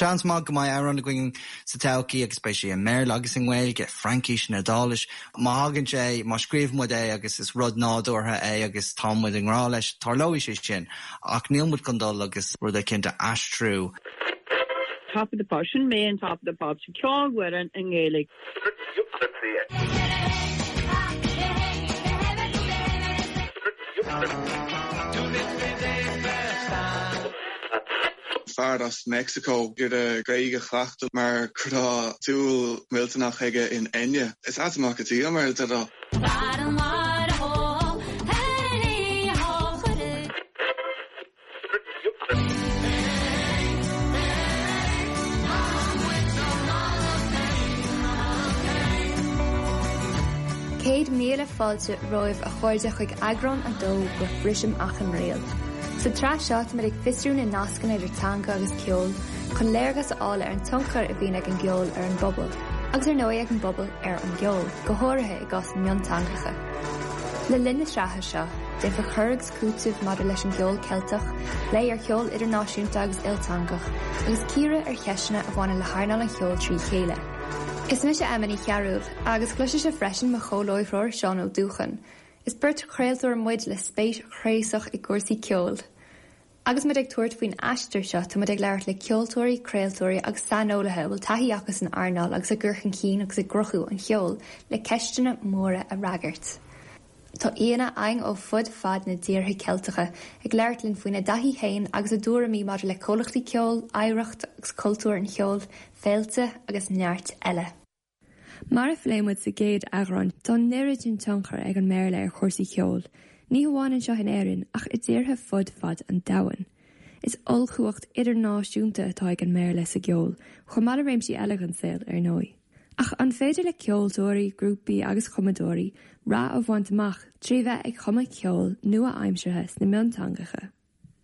Seans maith go mbeidh amhrán againn sa todhchaí agus beidh sé i mBéarla agus i nGaeilge, Fraincis nó Iodáilis. Má thagann sé, má scríobhann muid é agus is rud nádúrtha é agus tá muid i ngrá leis, tarlóidh sé sin. Ach níl muid chun dul agus rud eicínt a aistriú. Top of the Pops, sin mé in Top of the Pops, ceol Mhuireann i nGaeilge. Fear as Meicsiceo ag iarraidh Gaeilge a chleachtadh mar go raibh dúil mhillteanach aige in Enya. Is ait amach go dtí mar a déarfá. 100,000 fáilte romhaibh a chairde chuig eagrán 2 de Brisim Achan Riail. Sa tsraith seo táimid ag fiosrú na nascanna idir teanga agus ceol chun léargas a fháil ar an tionchar a bhíonn ag an gceol ar an bpobal, agus ar ndóigh ag an bpobal ar an gceol, go háirithe i gcás na mionteangacha. Le linn na sraithe seo, déanfar cur agus cúiteamh maidir leis an gceol Ceilteach, plé ar cheol idirnáisiúnta agus ilteangach, agus cíoradh ar cheisteanna a bhaineann le hearnáil an cheoil trí chéile. Is mise Emma Ní Chearúil, agus cloisfidh sibh freisin mo chomhláithreoir Seán Ó Dúcháin. Is beirt chraoltóir muid le spéis chraosach i gcúrsaí ceoil. Agus muid ag tabhairt faoin aistear seo, tá muid ag labhairt le ceoltóirí, craoltóirí agus saineolaithe a bhfuil taithí acu san earnáil agus i gcur chun cinn agus i gcruthú an cheoil le ceisteanna móra a fhreagairt. Tá aíonna againn ó fud fad na dtíortha Ceilteacha ag labhairt linn faoina dtaithí féin agus a dtuairimí maidir le comhlachtaí ceoil, oidhreacht agus cultúr an cheoil, féilte agus neart eile. Mar a phléigh muid sa gcéad eagrán, tá an oiread sin tionchair ag an mBéarla ar chúrsaí ceoil, ní hamháin anseo in Éirinn ach i dtíortha fud fad an domhain. Is ollchumhacht idirnáisiúnta atá ag an mBéarla sa gceol, chomh maith le réimsí eile den saol, ar ndóigh. Ach an féidir le ceoltóirí, grúpaí agus cumadóirí rath a bhaint amach trí bheith ag cumadh ceoil nua-aimseartha sna mionteangacha?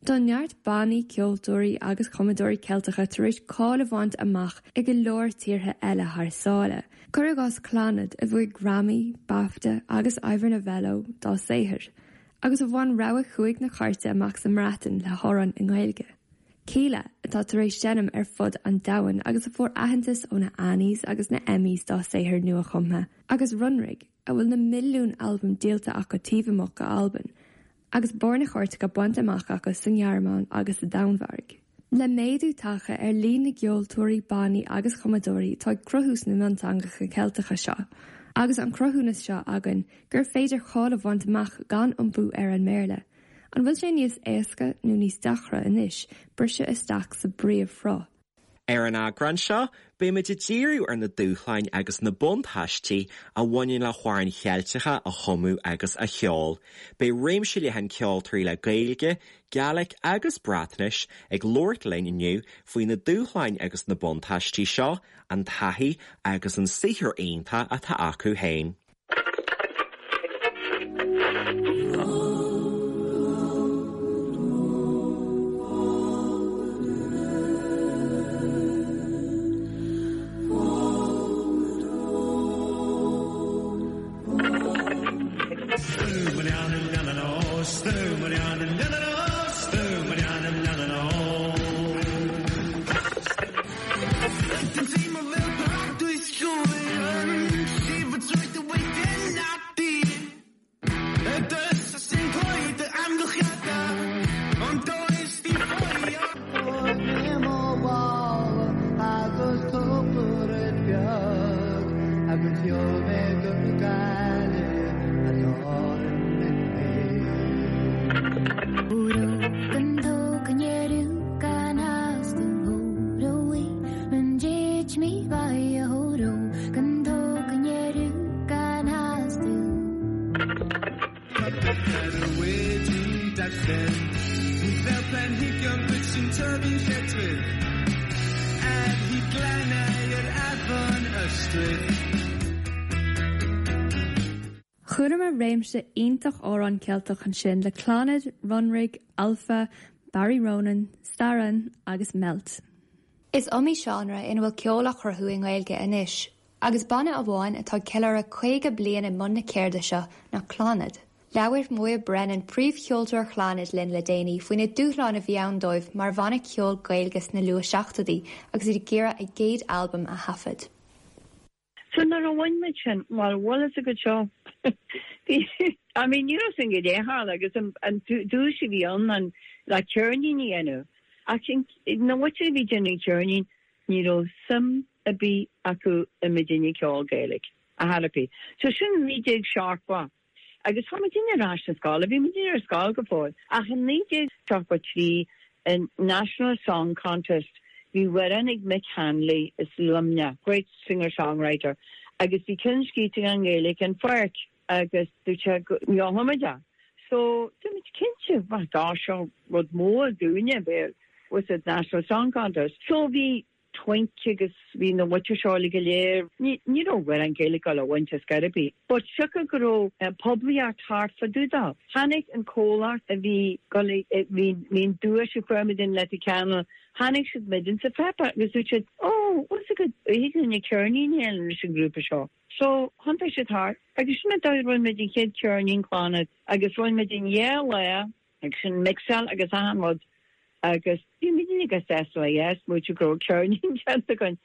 Tá neart bannaí, ceoltóirí agus cumadóirí Ceilteacha tar éis cáil a bhaint amach i go leor tíortha eile thar sáile, cuir i gcás Clannad a bhuaigh Grammy, BAFTA agus Ivor Novello dá saothar, agus a bhain rogha chúig na cairte amach sa mBreatain le hamhrán i nGaeilge. Kíla, atá tar éis seinm ar fud an domhain agus a fuair aitheantas ó na Annies agus na Emmys dá saothar nua-chumtha, agus Runrig, a bhfuil na milliúin albam díolta acu taobh amuigh d'Albain, agus barr na cairteacha bainte amach acu sa nGearmáin agus sa Danmhairg. Le méadú tagtha ar líon na gceoltóirí, bannaí agus cumadóirí atá ag cruthú sna mionteangacha Ceilteacha seo, agus an cruthúnas seo againn gur féidir cáil a bhaint amach gan iompú ar an mBéarla, An bhfuil sé níos éasca nó níos deacra anois briseadh isteach sa bpríomhshruth? Ar an eagrán seo, beimid ag díriú ar na dúshláin agus na buntáistí a bhaineann le hamhráin Cheilteacha a chumadh agus a cheol. Beidh réimse leathan ceoltóirí le Gaeilge, Gaelic agus Breatnais ag labhairt linn inniu faoi na dúshláin agus na buntáistí seo, an taithí agus an saothar iontach atá acu féin. Chualamar réimse iontach amhrán Ceilteach ansin le Clannad, Runrig, Alpha, Barry Ronan, Staran agus Melt. Is iomaí seánra ina bhfuil ceol á chruthú i nGaeilge anois, agus banna amháin atá ag ceiliúradh 50 bliain i mbun na ceirde seo ná Clannad. Labhair Moya Brennan, príomhcheoltóir Chlannad linn le déanaí faoi na dúshláin a bhí ann dóibh mar bhanna ceoil Gaeilge sna luath-seachtóidí agus iad ag iarraidh a gcéad albam a thaifead. So nuair a bhain muid sin, bhuel, bhfuil fhios agat seo, bhí, I mean, ní raibh sin go leith agus an duais a bhí ann an le ceirnín a dhéanamh. Ach na muintir a bhí ag déanamh an cheirnín, ní raibh suim ar bith acu i muidinne ag ceol Gaeilge, ar chor ar bith. So sin 1970. Agus tá muidinne ar ais sa scoil, bhí muidinne ar scoil go fóill. Ach in 1973 in National Song Contest bhí amhrán ag Mick Hanley as Luimneach, great singer-songwriter, agus bhí ceann scríte aige i nGaeilge, An Pháirc, agus dúirt sé go ngeobhadh muid é. So dúirt muid cinnte, bhuel dá seo rud mór dúinne, bheith with the National Song Contest. So bhí Twink agus bhí na muintir seo uilig go léir. Ní raibh amhrán Gaeilge ag dul a bhaint ar scor ar bith. But siocair go raibh poiblíocht thart fá dtaobh dó. Tháinig an comhlacht a bhí dul a bhí bhí an duais a fuair muid in Leitir Ceanainn, tháinig siad muid sa pháipéar agus dúirt siad oh bhfuil fhios agat thig linn ceirnín a dhéanamh leis an ngrúpa seo. So thiontaigh siad thart agus sin an dóigh a rinne muid an chéad cheirnín Clannad agus rinne muid in dhá lá agus sin mixáil agus achan rud agus bhí muidinne go sásta le yes, muid go raibh ceirnín déanta againn.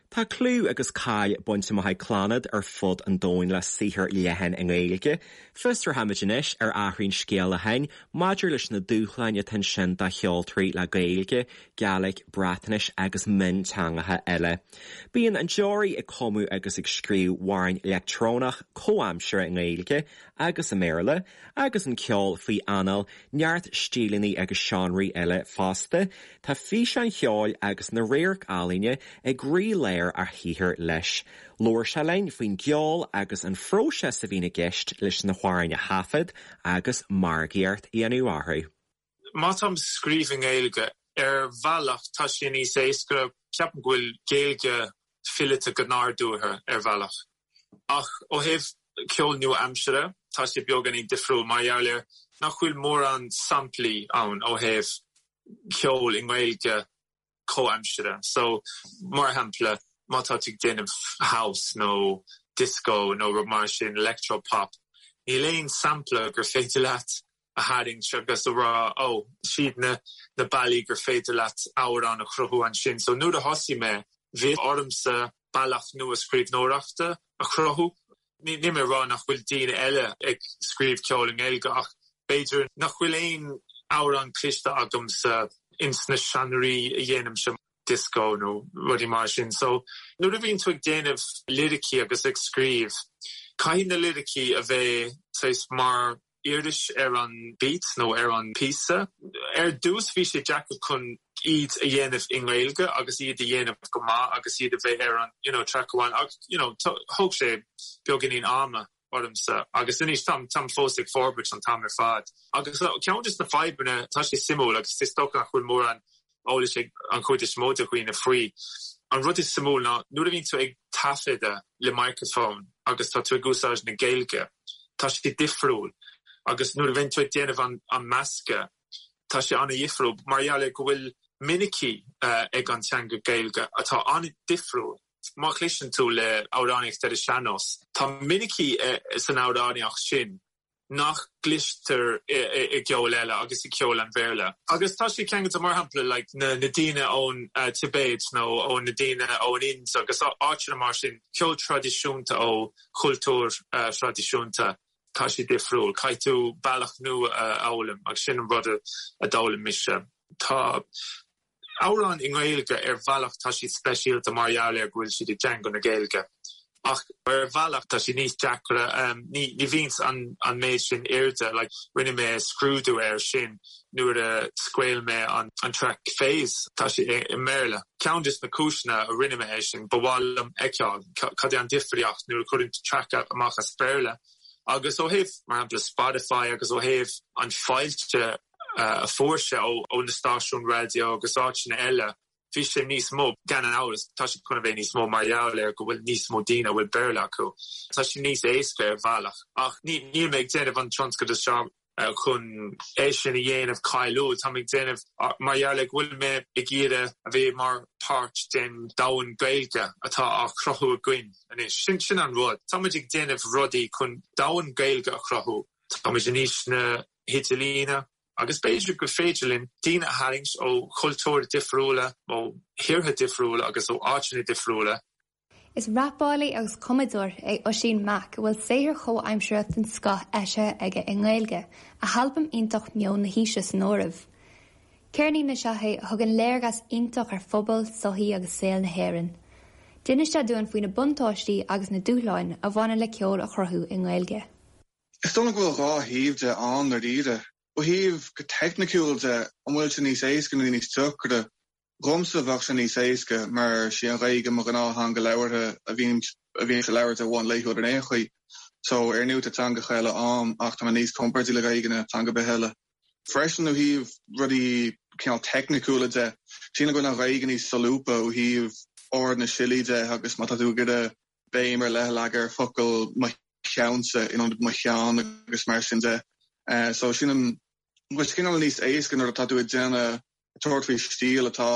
Tá clú agus cáil bainte amach ag Clannad ar fud an domhain le saothar leathan i nGaeilge. Fiosróimid anois ar Athraíonn Scéal Acháin maidir leis na dúshláin atá ansin do cheoltóirí le Gaeilge, Gàidhlig, Breatnais agus mionteangacha eile. Bíonn an Deoraí ag cumadh agus ag scríobh amhráin leictreonach comhaimseartha i nGaeilge agus i mBéarla, agus an ceol faoi anáil neart stíleanna agus seánraí eile fosta. Tá físeáin cheoil agus na radharc-ealaíne i gcroílár a shaothair leis. Labhair sé linn faoin gceol agus an phróiseas a bhíonn i gceist leis na hamhráin a thaifead agus margaíocht a dhéanamh orthu. Má táim ag scríobh i nGaeilge, ar bhealach tá sé níos éasca, ceapaim go bhfuil Gaeilge fileata go nádúrtha ar bhealach. Ach ó thaobh ceol nua-aimseartha, tá sé beagáinín difriúil mar gheall ar nach bhfuil mórán samplaí ann ó thaobh ceol i nGaeilge comhaimseartha. So, mar shampla, má tá tú ag déanamh house nó disco nó rud mar sin, electro pop, níl aon sampla gur féidir leat a tharraingt agus a rá, oh, siad na na bealaí gur féidir leat amhrán a chruthú ansin. So nuair a thosaigh mé, bhí ormsa bealach nua scríbhneoireachta a chruthú. Níl mé ag rá nach bhfuil daoine eile ag scríobh ceol i nGaeilge ach b'fhéidir nach bhfuil aon amhrán cliste agamsa ins na seánraí a dhéanaimse, disco nó rudaí mar sin. So nuair a bhíonn tú ag déanamh liricí agus ag scríobh, caithfidh na liricí a bheith saghas mar uirlis ar an beat nó ar an píosa. Ar dtús bhí sé deacair chun iad a dhéanamh i nGaeilge agus iad a dhéanamh go maith agus iad a bheith ar an you know track amháin ach you know thóg sé beagáinín ama ormsa agus anois táim táim fós ag forbairt an t-am ar fad. Agus ceann de na fadhbanna tá sé suimiúil agus is dócha nach bhfuil mórán eolais ag an chuid is mó de dhaoine faoi. An rud is suimiúil ná nuair a bhíonn tú ag taifeadadh le microphone agus tá tú ag úsáid na Gaeilge, tá sé difriúil agus nuair a bhíonn tú ag déanamh an an meascadh, tá sé an-dhifriúil mar gheall ar go bhfuil minicí ag an teanga Gaeilge atá an-difriúil. Má chloiseann tú le amhránaíocht ar an sean-nós, tá minicí san amhránaíocht sin nach gcloistear i gceol eile agus i gceol an Bhéarla. Agus tá sé ceangailte, mar shampla, like na daoine ón Tibéid nó ó na daoine ón Ind agus áiteanna mar sin, ceol traidisiúnta ó chultúir thraidisiúnta, tá sé difriúil. Caithfidh tú bealach nua a fhoghlaim agus sin an rud a d'fhoghlaim mise. Tá. Amhráin i nGaeilge, ar bhealach tá siad speisialta mar gheall ar go bhfuil siad i dteanga na Gaeilge. Ach ar bhealach tá siad níos deacra, ní bhíonns an an méid sin airde, like rinne mé scrúdú air sin nuair a scaoil mé an an track Phase, tá sé i mBéarla. Ceann des na cúiseanna a rinne mé é sin, ba mhaith liom fheiceáil cad é an difríocht nuair a chuireann tú track amach as Béarla agus ó thaobh mar shampla Spotify agus ó thaobh an fáilte a fuair sé ó na stáisiúin raidió agus áiteanna eile, bhí sé níos mó. Gan amhras, tá sé chun a bheith níos mó mar gheall ar go bhfuil níos mó daoine a bhfuil Béarla acu. Tá sé níos éasca ar bhealach. Ach níl mé ag déanamh an tionscadal seo chun é sin a dhéanamh cáiliúil. Tá mé ag déanamh mar gheall ar go bhfuil mé ag iarraidh a bheith mar páirt den domhan Gaeilge atá á chruthú againn anois. Sin an rud. Tá muid ag déanamh rudaí chun domhan Gaeilge a chruthú. Táimid in aois na hidirlíne agus b'fhéidir gur féidir linn daoine a tharraingt ó chultúir difriúla, ó thíortha difriúla agus ó áiteanna difriúla. Is rapálaí agus cumadóir é Oisín Mac a bhfuil saothar chomhaimseartha den scoth eisithe aige i nGaeilge, a halbam iontach Meon na hAoise san áireamh. Ceirnín is ea é a thugann léargas iontach ar phobal, sochaí agus saol na hÉireann. D'inis sé dúinn faoi na buntáistí agus na dúshláin a bhaineann le ceol a chruthú i nGaeilge. Is dóigh liom go bhfuil dhá thaobh de ann ndáiríre. Ó thaobh go teicniciúil de, an bhfuil sé níos éasca nó níos deacra? Dhomsa bheadh sé níos éasca mar sí an Ghaeilge mo ghnáth-theanga labhartha a bhím a bhímse ag labhairt ar bhonn laethúil ar aon chaoi. So ar ndóigh tá teangacha eile a'm ach tá mé níos compordaí le Gaeilge ná teanga ar bith eile. Freisin ó thaobh rudaí cineál teicniciúla de, sílim go bhfuil an Ghaeilge níos solúbtha ó thaobh ord na siollaí de agus má tá tú ag iarraidh béim ar leith a leagadh ar focal mo cheannsa in ionad mo cheann agus mar sin de. So sílim go bhfuil sé cineál níos éasca nuair atá tú ag déanamh ag tabhairt faoi stíl atá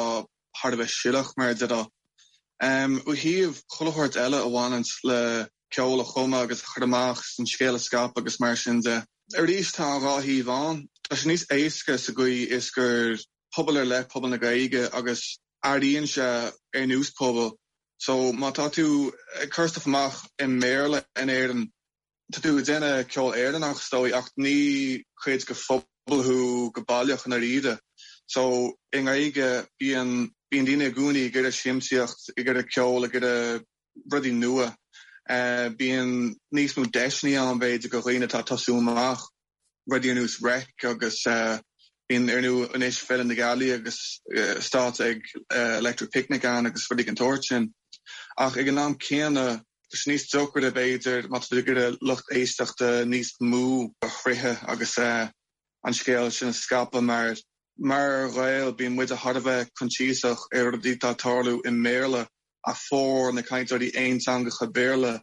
thar a bheith siollach, mar a déarfá. Ó thaobh chuile shórt eile a bhaineanns le ceol a chumadh agus a chur amach is an scéal a scaipeadh agus mar sin de. Arís, tá an dhá thaobh ann. Tá sé níos éasca sa gcaoi is gur pobal ar leith pobal na Gaeilge agus airíonn sé ar nós pobal. So má tá tú ag cur stuff amach i mBéarla in Éirinn, Tá tú ag déanamh ceol Éireannach is dóigh ach ní cuid de phobal thú go baileach i ndáiríre. So i nGaeilge bíonn bíonn daoine i gcónaí ag iarraidh siamsaíocht, ag iarraidh ceol, ag iarraidh rudaí nua. Bíonn níos mó deiseanna ann b'fhéidir do dhaoine atá ag tosú amach. rudaí ar nós Reic agus bíonn ar ndóigh anois Féile na Gealaí agus stáitse ag Electric Picnic ann agus rudaí den tsórt sin. Ach ag an am céanna, tá sé níos deacra b'fhéidir má tá tú ag iarraidh lucht éisteachta níos mó a shroicheadh agus an scéal sin a scaipeadh mar mar Ghaeil bíonn muide thar a bheith coinsiasach ar rudaí atá ag tarlú i mBéarla ach formhór na cainteoirí aonteangacha Béarla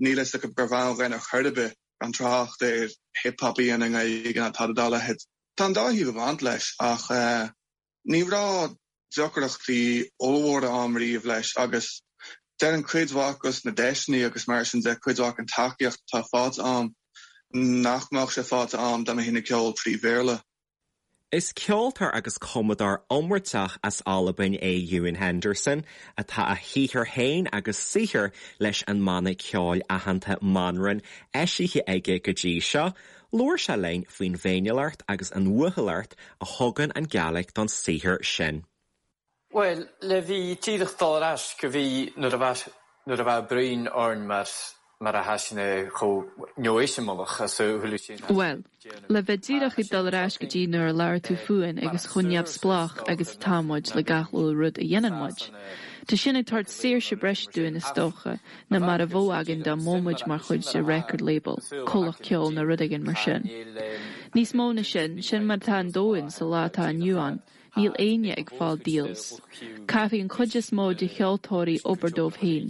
Níl fhios acu gurbh ann dhuinn ar chor ar bith, gan trácht ar hip hop a dhéanamh i nGaeilge ná tada dá leithéid. Tá an dá thaobh ag baint leis ach ní raibh deacrachtaí ollmhóra a'm riamh leis agus déarfainn cuid mhaith dos na deiseanna agus mar sin de, cuid mhaith den tacaíocht atá faighte a'm nach mbeadh sé faighte a'm dá mbeinn ag ceol trí Bhéarla. Is ceoltóir agus cumadóir iomráiteach as Albain é Ewan Henderson, atá a shaothar féin agus saothar leis an mbanna ceoil aitheanta Manran eisithe aige go dtí seo. Labhair sé linn faoin bhféiniúlacht agus an uathúlacht a thugann an Ghàidhlig don saothar sin. Bhuel, le bhí díreach dul ar ais go bhí nuair a bheadh nuair a bheadh bruíon orainn mar mar a thaisne chomh neoiseamalach as a thuilleadh sin Bhuel, le bheith díreach ag dul ar ais go dtí nuair a labhair tú fúinn agus chomh neamhspleách agus atá muid le gach uile rud a dhéanann muid. Tá sin ag tabhairt saoirse breise dúinn is dócha ná mar a bheadh againn dá mbeadh muid mar chuid de record label, comhlacht ceoil nó rud éigin mar sin. Níos mó na sin, sin mar atá an domhan sa lá atá inniu ann. Níl éinne ag fáil deals. Caithfidh an chuid is mó de cheoltóirí obair dóibh féin.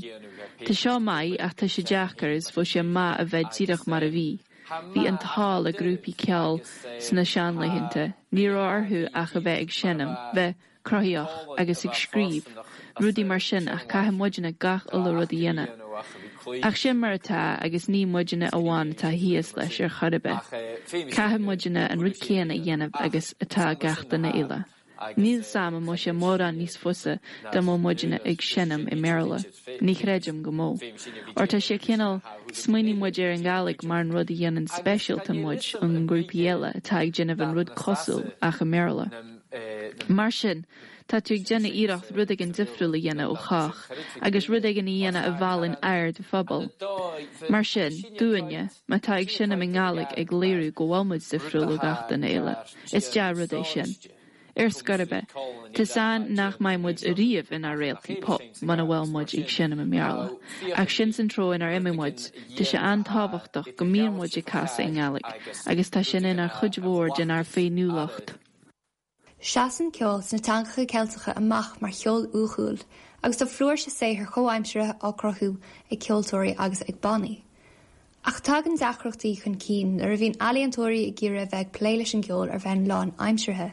Tá seo maith ach tá sé deacair is bheadh sé maith a bheith díreach mar a bhí. Bhí an t-ádh le grúpaí ceoil sna seanlaethanta, ní raibh orthu ach a bheith ag seinm, bheith cruthaitheach agus ag scríobh, rudaí mar sin ach caithfidh muidne gach uile rud a dhéanamh. Ach sin mar atá agus ní muidne amháin atá thíos leis ar chor ar bith. Caithfidh muidne an rud céanna a dhéanamh agus atá gach duine eile. Níl 's a'm an mbeadh sé mórán níos fusa dá mbeadh muidne ag seinm i mBéarla. Ní chreidim go mbeadh. Óir tá sé cineál, smaoiníonn muid ar an Ghàidhlig mar an rud a dhéanann speisialta muid ón ngrúpaí eile atá ag déanamh an rud cosúil ach i mBéarla. Mar sin, Tá tú ag déanamh iarracht rud éigin difriúil a dhéanamh ó chách agus rud éigin a dhéanamh a mheallann aird an phobail. Mar sin, dúinne, má tá ag seinm i nGàidhlig ag léiriú go bhfuil muid difriúil ó gach duine eile, is dea-rud é sin. Ar scor ar bith, tá's a'inn nach mbeidh muid ariamh inár réaltaí pop muna bhfuil muid ag seinm i mBéarla. Ach sin san treo inar imigh muid, tá sé an-tábhachtach go mbíonn muid ag casadh i nGàidhlig agus tá sin inár chuid mhór denár féiniúlacht. Seasann ceol sna teangacha Ceilteacha amach mar cheol uathúil agus tá flúirse saothair chomhaimseartha á cruthú ag ceoltóirí agus ag bannaí. Ach tagann deacrachtaí chun cinn nuair a bhíonn ealaíontóirí ag iarraidh a bheith ag plé leis an gceol ar bhonn lánaimseartha.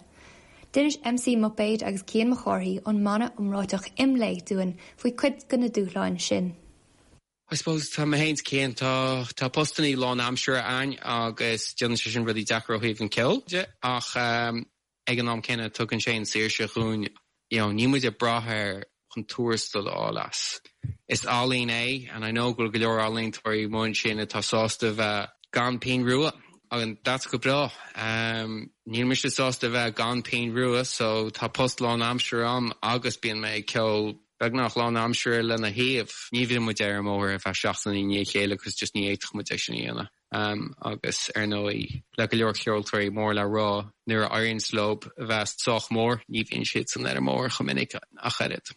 D'inis MC Muipéad agus Cian Mac Cárthaigh ón mbanna iomráiteach Imlé dúinn faoi cuid de na dúshláin sin. I suppose tá mé féin 's Cian, tá tá postannaí lánaimseartha a'ainn agus déanann sé sin rudaí deacair ó thaobh an ceoil de ach ag an am céanna tugann sé an saoirse dhúinn, you know, níl muid ag brath ar chun tuarastal a fháil as. Is ealaín é and I know go bhfuil go leor ealaíontóirí amuigh ansin atá sásta bheith gan pingin rua and that's go breá. Níl mise sásta bheith gan pingin rua so tá post lánaimseartha a'm agus bíonn mé ag ceol beagnach lánaimseartha lena thaobh. Ní bhíonn muid ar an mbóthar ar feadh seachtaine i ndiaidh a chéile agus just ní fhéadfadh muid é sin a dhéanamh. Agus ar ndóigh, le go leor ceoltóirí mór le rá, nuair a éiríonns leo a bheith sách mór, ní bhíonn siadsan ar an mbóthar chomh minic ach oiread.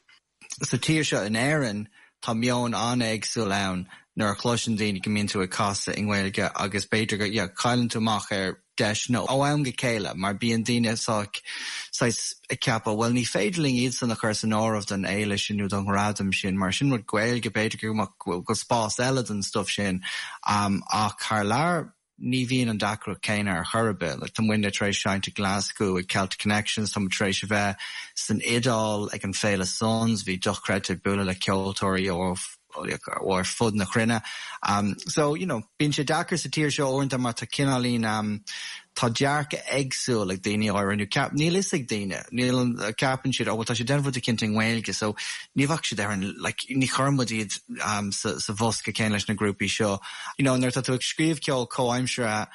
Sa tír seo in Éirinn, tá meon an-éagsúil ann nuair a chloiseann daoine go mbíonn tú ag casadh i nGaeilge agus b'fhéidir go, yeah, cailleann tú amach ar deiseanna ó am go chéile mar bíonn daoine saghas ag ceapadh bhuel ní féidir linn iadsan a chur san áireamh don fhéile sin nó don ghradam sin mar sin rud Gaeilge b'fhéidir go bhfuil spás eile don stuff sin ach thar lear ní bhíonn an deacracht céanna ar chor ar bith. Like, tá muidne tar éis seinnt i Glasgow ag Celtic Connections, tá muid tar éis a bheith san Iodáil ag an Féile Suns, bhí dochreidte ag bualadh le ceoltóirí ó ó ar fud na cruinne. So, you know, bíonn sé deacair sa tír seo uaireanta mar tá cineáilín, tá dearcadh éagsúil ag daoine áirithe nó ceap, níl fhios ag daoine, níl an, ceapann siad, oh well tá siad ag déanamh rud eicínt i nGaeilge so ní bheadh siad ar an, like, ní chuireann muid iad sa, sa bhosca céanna leis na grúpaí seo. You know, nuair atá tú ag scríobh ceol comhaimseartha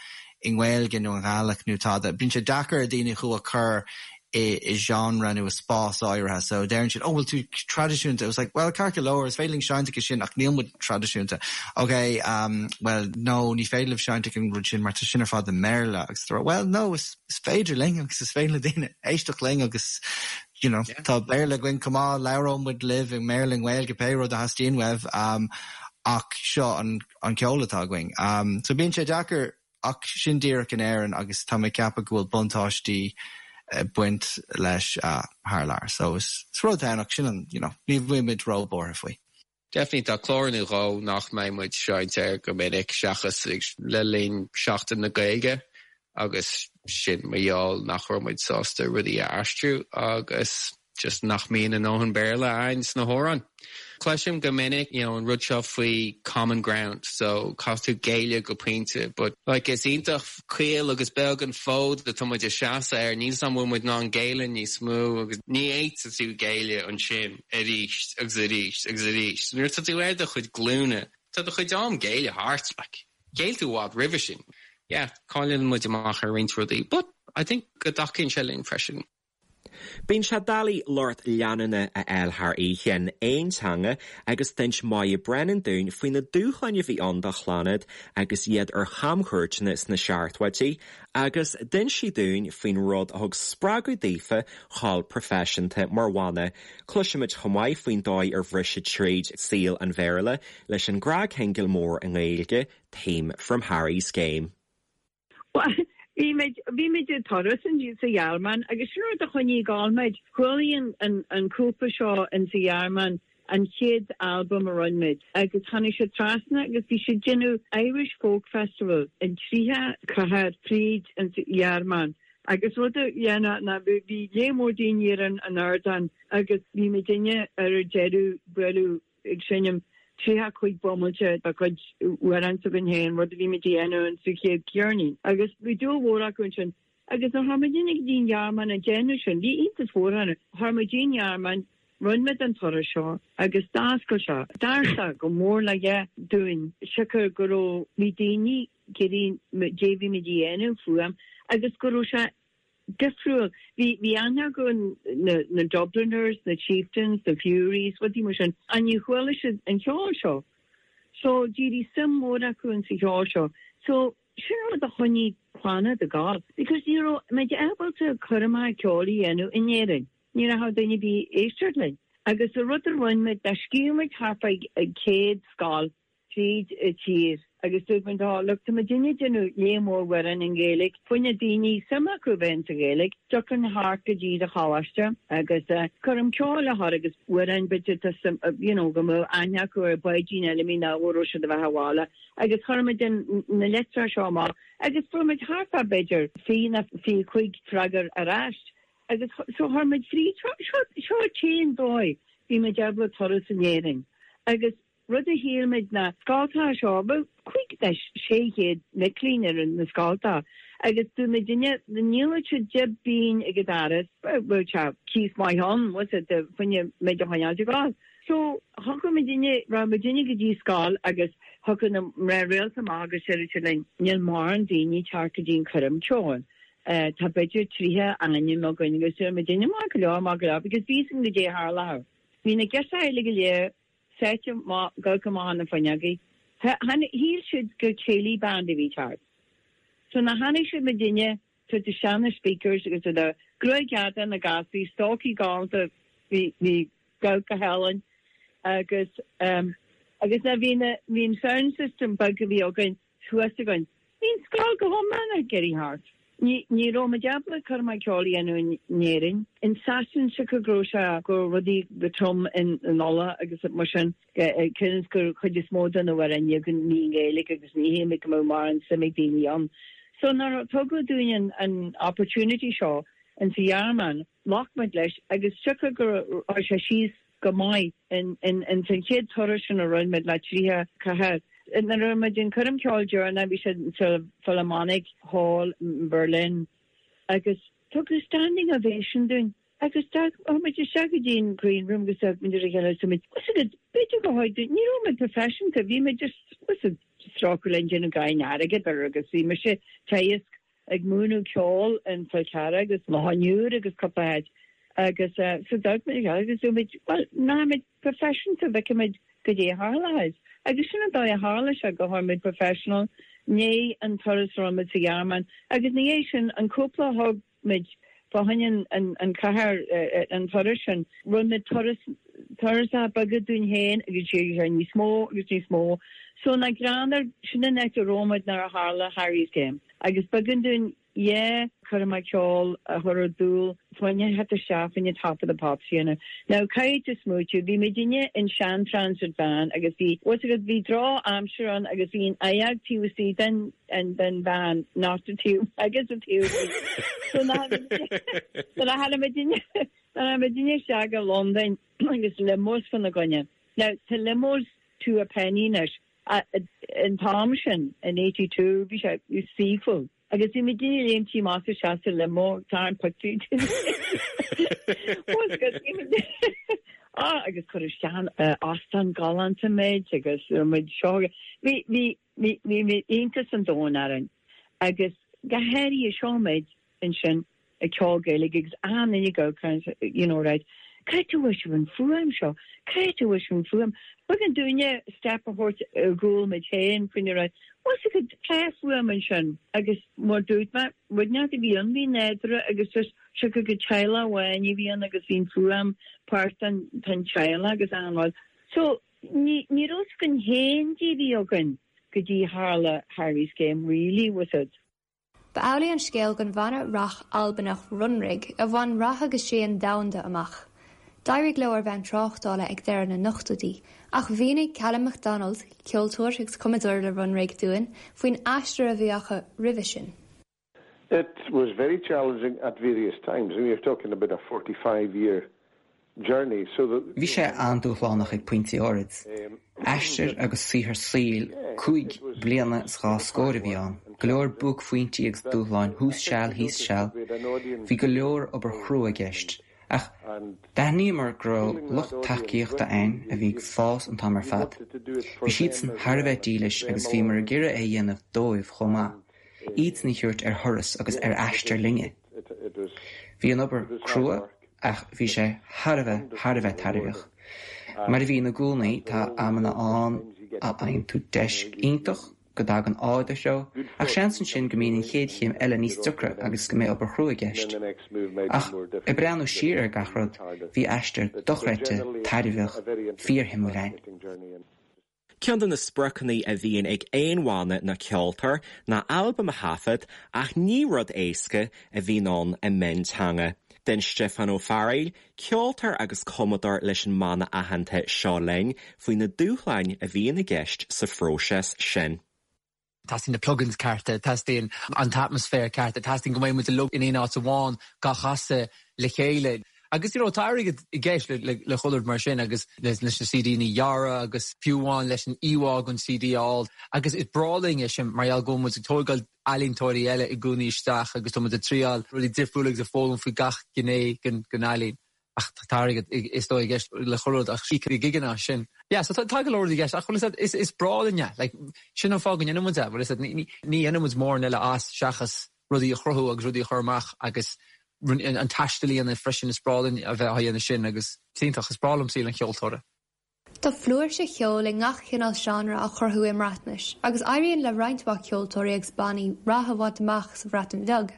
i nGaeilge nó i nGaelic nó tada, bíonn sé deacair ar daoine thú a chur i i genre nó i spás áirithe so deireann siad oh bhfuil tú traidisiúnta? It's like well ceart go leor is féidir linn seinnt aige sin ach níl muid traidisiúnta. Ok um well no ní féidir libh seinnt ag an rud sin mar tá sin ar fad i mBéarla agus tá well no is is féidir linn agus is féidir le daoine éisteacht linn agus you know tá Béarla againn chomh maith labhróidh muid libh i mBéarla i nGaeilge pé rud a theastaíonn uaibh um ach seo an an ceol atá againn. Um so bíonn sé deacair Ach sin díreach in Éirinn agus tá mé ag ceapadh go bhfuil buntáistí ag baint leis thar lear. So is rud ann ach sin an, you know, ní bhfuil muid ró-bhuartha faoi. Definitely tá clár nó dhó nach mbeidh muid seinnte air go minic seachas le linn Seachtain na Gaeilge agus sin mar gheall nach raibh muid sásta rudaí a aistriú agus just nach mbíonn a ndóthain Béarla a'ainn sna hamhráin. Cloisim go minic you know an rud seo faoi common ground so caithfidh tú géilleadh go pointe but like is iontach caol agus beag an fód atá muid ag seasamh air níl 's a'm bhfuil muid in ann géilleadh níos mó agus ní fhéadfaidh tú géilleadh ansin arís agus arís agus arís. Nuair atá tú ar do chuid glúine tá do chuid am géilleadh thart like ghéill tú i bhfad roimhe sin. Yeah cailleann muid amach ar roinnt rudaí but I think go dtacaíonn sé linn freisin. Bíonn sé doiligh lucht leanúna a fháil thar oíche in aon teanga agus d'inis Moya Brennan dúinn faoi na dúshláin a bhí ann do Chlannad agus iad ar chamchuairteanna sna seachtóidí agus d'inis sí dúinn faoin rud a thug spreagadh daofa dhul proifisiúnta mar bhanna. Cloisfimid chomh maith faoin dóigh ar bhris siad tríd saol an Bhéarla leis an gcnagshingil mór i nGaeilge, Theme from Harry's Game. Bhuel, bhí muid, bhí muid ag turas sa Ghearmáin agus sin rud a choinnigh ag gabháil muid. Chualaigh an, an cúpla seo in sa Ghearmáin an chéad albam a rinne muid agus tháinig siad trasna agus bhí siad déanamh Irish Folk Festival in 30 cathair fríd an Ghearmáin agus rud a dhéanamh ná bhí, bhí lear mór daoine ar an, an ardán agus bhí muidinne ar deireadh bualadh ag seinm 35 bomaite dá gcuid amhrán s'againn féin, rud a bhí muid a dhéanamh in sa chéad cheirnín. Agus bhí dúil mhór acu ansin. Agus nuair a tháinig muidinne go dtí an Ghearmáin ag déanamh sin, bhí iontas mhór orthu. Tháinig muid dtí an Ghearmáin, rinne muid an turas seo agus d'oscail sé doirse go mór le dhea dúinn, siocair go raibh, bhí daoine ag iarraidh caidé bhí muid a dhéanamh fuaim agus go raibh sé difriúil. Bhí, bhí aithne acu na, na Dubliners, na Chieftains, na Fureys, rudaí mar sin, ach ní chuala siad an cheol seo. So, d'éirigh suim mhór acu in sa cheol seo. So, sin rud a choinnigh Clannad ag gabháil, because ní raibh muid ábalta cur amach ceoil a dhéanamh in Éirinn. Ní raibh duine ar bith ag éisteacht linn. Agus an rud a rinne muid, ná scríobh muid thart fá 100 scoil tríd an tír agus dúirt muid, oh look, tá muidinne ag déanamh lear mór amhrán i nGaeilge, fá choinne daoine suim acu a bheith insa Ghaeilge, tiocfaidh thart go dtí do choláiste agus coirm ceoil a chur agus amhráin b'fhéidir tá suim, you know, go mbeadh aithne acu ar Bháidín Fheilimí nó go raibh siad a bheith abhaile agus chuir muid na litreacha seo amach agus fuair muid thart fá b'fhéidir 20 nó 25 freagra ar ais agus so chuir muid fríd, seo, seo, seo an t-aon dóigh bhí muid ábalta turas in Éirinn agus. Rud a shíl muid ná scoltacha seo, bheadh 5 nó 600 mic léinn ar na scoltacha agus dúirt muidinne dá ndíolfadh siad 10 bpingin ag an doras, bheadh sé cíos maith ann, bhfuil 's a'd, fá choinne muid a choinneáilt ag gabháil. So thiocfadh muidinne, raghadh muidinne go dtí scoil agus thiocfadh na mná rialta amach agus déarfadh siad linn, níl mórán daoine ag teacht go dtí an coirm ceoil. Tá b'fhéidir 30 ainm againn agus deir muidinne maith go leor, maith go leor because bhí 'fhios againn goidé a tharlódh. Bhí na girseachaí uilig go léir sáite amach, ag amharc amach na fuinneogaí. Shíl siad gur céilí band a bhí thart. So nuair a chonaic siad muidinne, tabhairt isteach na speakers agus iad gruaig fhada na gasraí, stocaí galánta, bhí, bhí go hálainn agus, agus nuair bhí na, bhí an sound system beag a bhí againn thuas againn. Bhí an scoil go hiomlán ag éirí thart. Ní, ní raibh muid ábalta coirmeacha ceoil a dhéanamh in Éirinn. In Sasain, siocair go raibh sé, go raibh rudaí go trom in, in Uladh agus mar sin, cionn is gur chuid is mó de na hamhráin ní againn ní i nGaeilge agus ní shíl muid go mbeadh mórán suim ag daoine ann. So nuair a tugadh dúinn an, an opportunity seo in sa Ghearmáin, ghlac muid leis agus siocair go raibh sé síos go maith in in san chéad turas sin a rinne muid le 30 cathair. Nuair a rinne muid an coirm ceoil deireanach bhí sé sa Philharmonic Hall in Berlin agus tugadh standing ovation dúinn agus chuaigh muid isteach go dtí an green room agus d'amharc muid ar a chéile agus dúirt muid bhfuil 's agat b'fhéidir go háit ní raibh muid professionta bhí muid just bhfuil 's agat strócadh linn déanamh gain airgead ar agus bhí mise teagasc ag múineadh ceoil in Fál Carrach agus Loch an Iúir agus cúpla áit agus so d'amharc muid ar a chéile agus dúirt muid bhuel nach muid professionta bhfeicfidh muid goidé a tharlóidh agus sin an dóigh a tharla sé go tháinig muid professional i ndiaidh an turas a rinne muid sa Ghearmáin agus ina dhiaidh sin an cúpla a thug muid fá choinne an an cathair an turas sin rinne muid turas turasanna beaga dúinn féin agus d'éirigh sé níos mó agus níos mó so nach greannmhar sin an áit a raibh muid nuair a tharla Harry's Game. Agus b'éigean dúinn dhá choirm cheoil a chur ar dtúl fá choinne theacht isteach fá choinne Top of the Pops a dhéanamh. Now caithfidh tú smaoitiú, bhí muidinne in sean transit van agus bhí, bhfuil 's agat, bhí droch aimsir ann agus bhí an oigheag taobh istigh den, den van, not the taobh agus the taobh amuigh. So nuair a tháinig muidinne, nuair a tháinig muidinne isteach i Londain agus limos fána gcoinne. Now tá limos two a penny anois. An t-am sin, in 82, bhí sé saoithiúil agus bhí muidinne ag léimt amach is isteach sa limo ag tarraingt pictiúirí dúinn. Ah, agus cuireadh isteach in óstán galánta muid agus raibh muid seo. Bhí, bhí, bhí, bhí iontas an domhain orainn agus go háirithe seo muid ansin ag ceol Gaeilge agus achan duine ag amharc you know right cá háit a bhfuair sibh an fuaim seo? Cá háit a bhfuair sibh an fuaim? B'éigean dúinne step a thabhairt ar gcúl muid féin faoina raibh bhfuil 's agat tá fuaim ansin agus mar dúirt mé rud inteacht a bhí ann bhí nádúrtha agus just siocair gur teaghlach amháin a bhí ann agus bhí an fuaim páirt den den teaghlach agus achan rud. So ní ní raibh 's againn féin goidé a bhí againn go dtí tharla Harry's Game really was it. Ba amhlaidh an scéal don bhanna rac Albanach Runrig a bhain rath agus séan domhanda amach. D'éirigh leo ar bhonn tráchtála ag deireadh na n-ochtóidí, ach mhínigh Callum MacDonald, ceoltóir agus cumadóir le Runrig dúinn faoin aistear a bhí acu roimhe sin. It was very challenging at various times. I mean, you're talking about a 45 year Bhí sé an-dúshlánach ag pointí áirid. Aistear agus saothar saoil cúig bliana is dhá scór a bhí ann, go leor buaicphointí agus dúshláin thuas seal thíos seal. Bhí go leor obair chrua i gceist. Ach d'aithníomar go raibh lucht tacaíochta againn a bhí ag fás an t-am ar fad. Bhí siadsan thar a bheith dílis agus bhíomar ag iarraidh é a dhéanamh dóibh chomh maith, iadsan a thabhairt ar thuras agus ar aistear linne. Bhí an obair crua Ach bhí sé thar a bheith, thar a bheith tairbheach. Mar a bhíonn i gcónaí, tá amanna ann a fhaigheann tú deis iontach, go dtagann ádh i do threo, ach seans ansin go mbíonn an chéad chéim eile níos deacra agus go mbeidh obair chrua i gceist. Ach ag breathnú siar ar gach rud, bhí aistear dochreidte, tairbheach, fíorshuimiúil againn. Ceann de na spriocanna a bhíonn ag aon bhanna nó ceoltóir ná albam a thaifead ach ní rud éasca a bhíonn ann i mionteanga. D'inis Stiofán Ó Fearghaíl, ceoltóir agus cumadóir leis an mbanna aitheanta Seo Linn, faoi na dúshláin a bhíonn i gceist sa phróiseas sin. Teastaíonn na plugins cearta, teastaíonn an t-atmaisféar ceart, teastaíonn go mbeidh muid uilig in aon áit amháin gach casadh le chéile. Agus you know tá airgead i gceist le le chuile rud mar sin agus leis na CDanna a dhearadh agus fiú amháin leis an íomhá den CD a fháil. Agus is breá linn é sin mar gheall go bhfuil muid ag tógáil ealaíontóirí eile i gcónaí isteach agus tá muid ag triáil rudaí difriúla agus ag foghlaim faoi gach gné den ealaín. Ach tá airgead is dóigh i gceist le chuile rud ach íoc na gigeanna as sin. Yeah so tá go leor rudaí i gceist ach bhfuil a fhios agat is breá linn é. Like sin an fáth go ndéanann muid é bhfuil a fhios agat ní dhéanann muid mórán eile as seachas rudaí a chruthú agus rudaí a chur amach agus an taisteal a dhéanamh freisin is breá linn a bheith á dhéanamh sin agus is iontach, is breá liom saol an cheoltóra. Tá flúirse cheoil i ngach cineál seánra á chruthú i mBreatnais agus éiríonn le roinnt mhaith ceoltóirí agus bannaí rath a bhaint amach sa Bhreatain Bheag.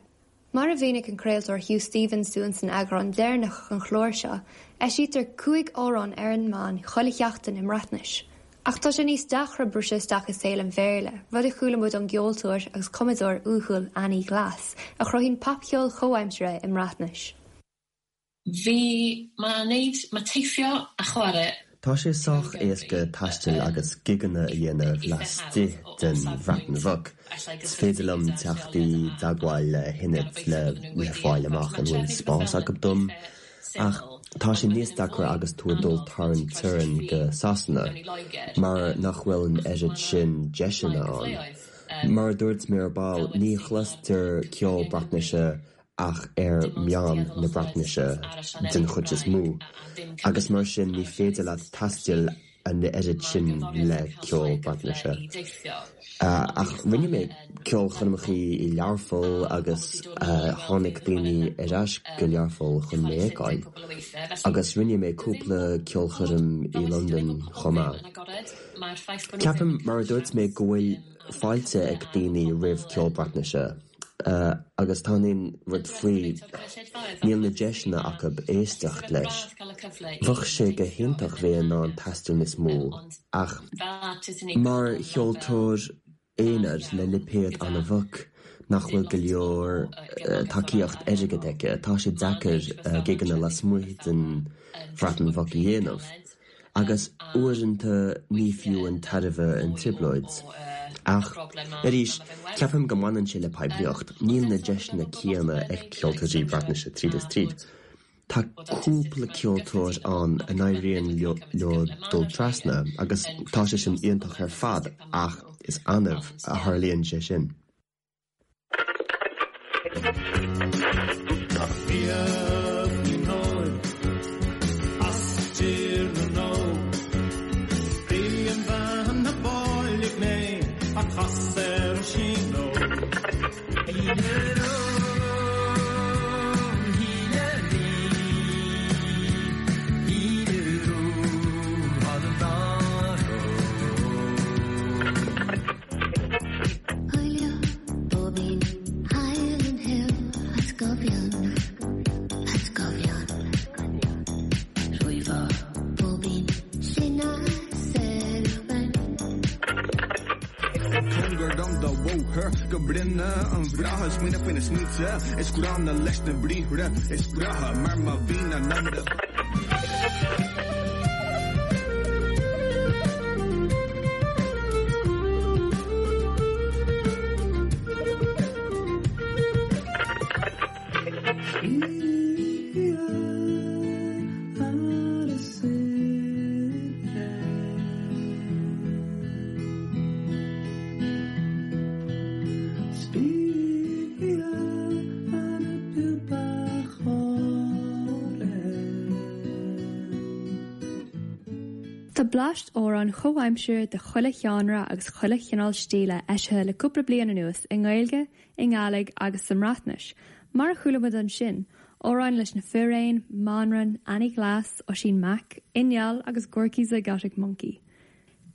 Mar a mhínigh an craoltóir Huw Stephens dúinn san eagrán deireanach den chlár seo, eisítear 5 amhrán ar an meán chuile sheachtain i mBreatnais. Ach tá sé níos deacra briseadh isteach i saol an Bhéarla, rud a chuala muid ón gceoltóir agus cumadóir uathúil Ani Glass, a chruthaíonn popcheol chomhaimseartha i mBreatnais. Bhí ma wneud, ma teithio a chwarae. Tá sé sách éasca taisteal agus gigeanna a dhéanamh laistigh den Bhreatain Bheag. Is féidir liom teacht i dteagmháil le hionad le le fáil amach an bhfuil spás acu dom. Ach tá sé níos deacra agus tú ag dul thar an teorainn go Sasana, mar nach bhfuil an oiread sin deiseanna ann. Mar a dúirt mé ar ball, ní chloistear ceol Breatnaise ach ar mheáin na Breatnaise den chuid is mó, agus mar sin ní féidir leat taisteal an oiread sin le ceol Breatnaise. Ach rinne mé ceolchoirmeacha i Learpholl agus tháinig daoine ar ais go Learpholl chun mé a fheiceáil. Agus rinne mé cúpla ceolchoirm i Londain chomh maith. Ceapaim, mar a dúirt mé, go bhfuil fáilte ag daoine roimh ceol Breatnaise. Agus tá an rud faoi, níl na deiseanna acu éisteacht leis. Bheadh sé go hiontach bheith in ann taisteal níos mó, ach mar cheoltóir aonair le lipéad an-bheag nach bhfuil go leor tacaíocht airgid aici, tá sé deacair gigeanna lasmuigh den Bhreatain Bheag a dhéanamh. Agus uaireanta ní fiú an tairbhe an trioblóid. Ach, arís, ceapaim go mbaineann sé le poiblíocht, níl na deiseanna céanna ag ceoltóirí Breatnaise tríd is tríd. Tá cúpla ceoltóir ann a n-éiríonn leo dul trasna agus tá sé sin iontach ar fad ach is annamh a tharlaíonn sé sin. Tá bleaist amhrán chomhaimseartha de chuile sheánra agus chuile chineál stíle eisithe le cúpla bliain anuas i nGaeilge, i nGàidhlig agus sa mBreatnais, mar a chuala muid ansin, amhráin leis na Firéin, Manran, Annie Glass, Oisín Mac, Inneall agus Gorky Zygotic Mynci.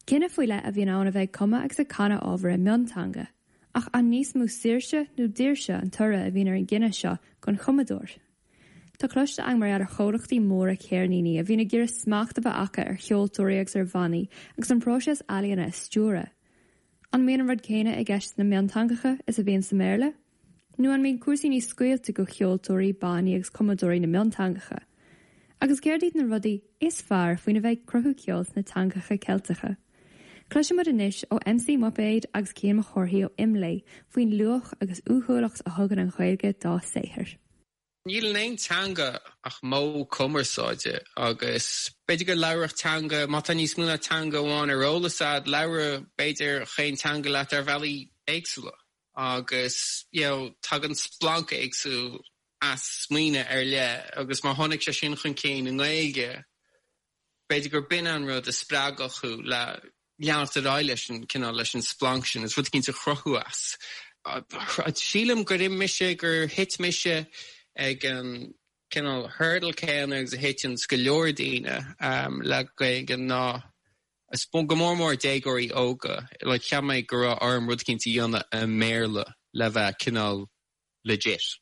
Cinneadh faoi leith a bhíonn ann a bheith ag cumadh agus ag canadh ábhar i mionteanga. Ach an níos mó saoirse nó daoirse an toradh a bhíonn ar an gcinneadh seo don chumadóir? Tá cloiste againn mar gheall ar chomhlachtaí móra ceirníní a bhíonn ag iarraidh smacht a bheith acu ar cheoltóirí agus ar bhannaí agus an próiseas ealaíona a stiúradh. An mbíonn an rud céanna i gceist sna mionteangacha is a bhíonn sa mBéarla? Nó an mbíonn cúrsaí níos scaoilte do cheoltóirí, bannaí agus cumadóirí na mionteangacha? Agus céard iad na rudaí is fearr faoina bheith ag cruthú ceoil sna teangacha Ceilteacha? Cloisfidh muid anois ó MC Muipéad agus Cian Mac Cárthaigh ó Imlé faoin luach agus uathúlacht a thugann an Ghaeilge dá saothar. Níl in aon teanga ach modh cumarsáide agus b'fhéidir go labhródh teanga, má tá níos mó ná teanga amháin ar eolas a'd, labhróidh b'fhéidir chaon teanga leat ar bhealaí éagsúla agus you know tagann splanc éagsúil as smaoineamh ar leith agus má tháinig sé sin chun cinn i nGaeilge, B'fhéidir gur b'in an rud a spreagfadh thú le leanacht ar aghaidh leis an cineál, leis an splanc sin, is rud eicínt a chruthú as. Sílim gur imigh mise, gur thit mise ag an cineál hurdle céanna agus a thiteanns go leor daoine le Gaeilge ná, go mór mór déagóirí óga, like cheap mé go raibh orm rud eicínt a dhéanamh i mBéarla le bheith cineál legit.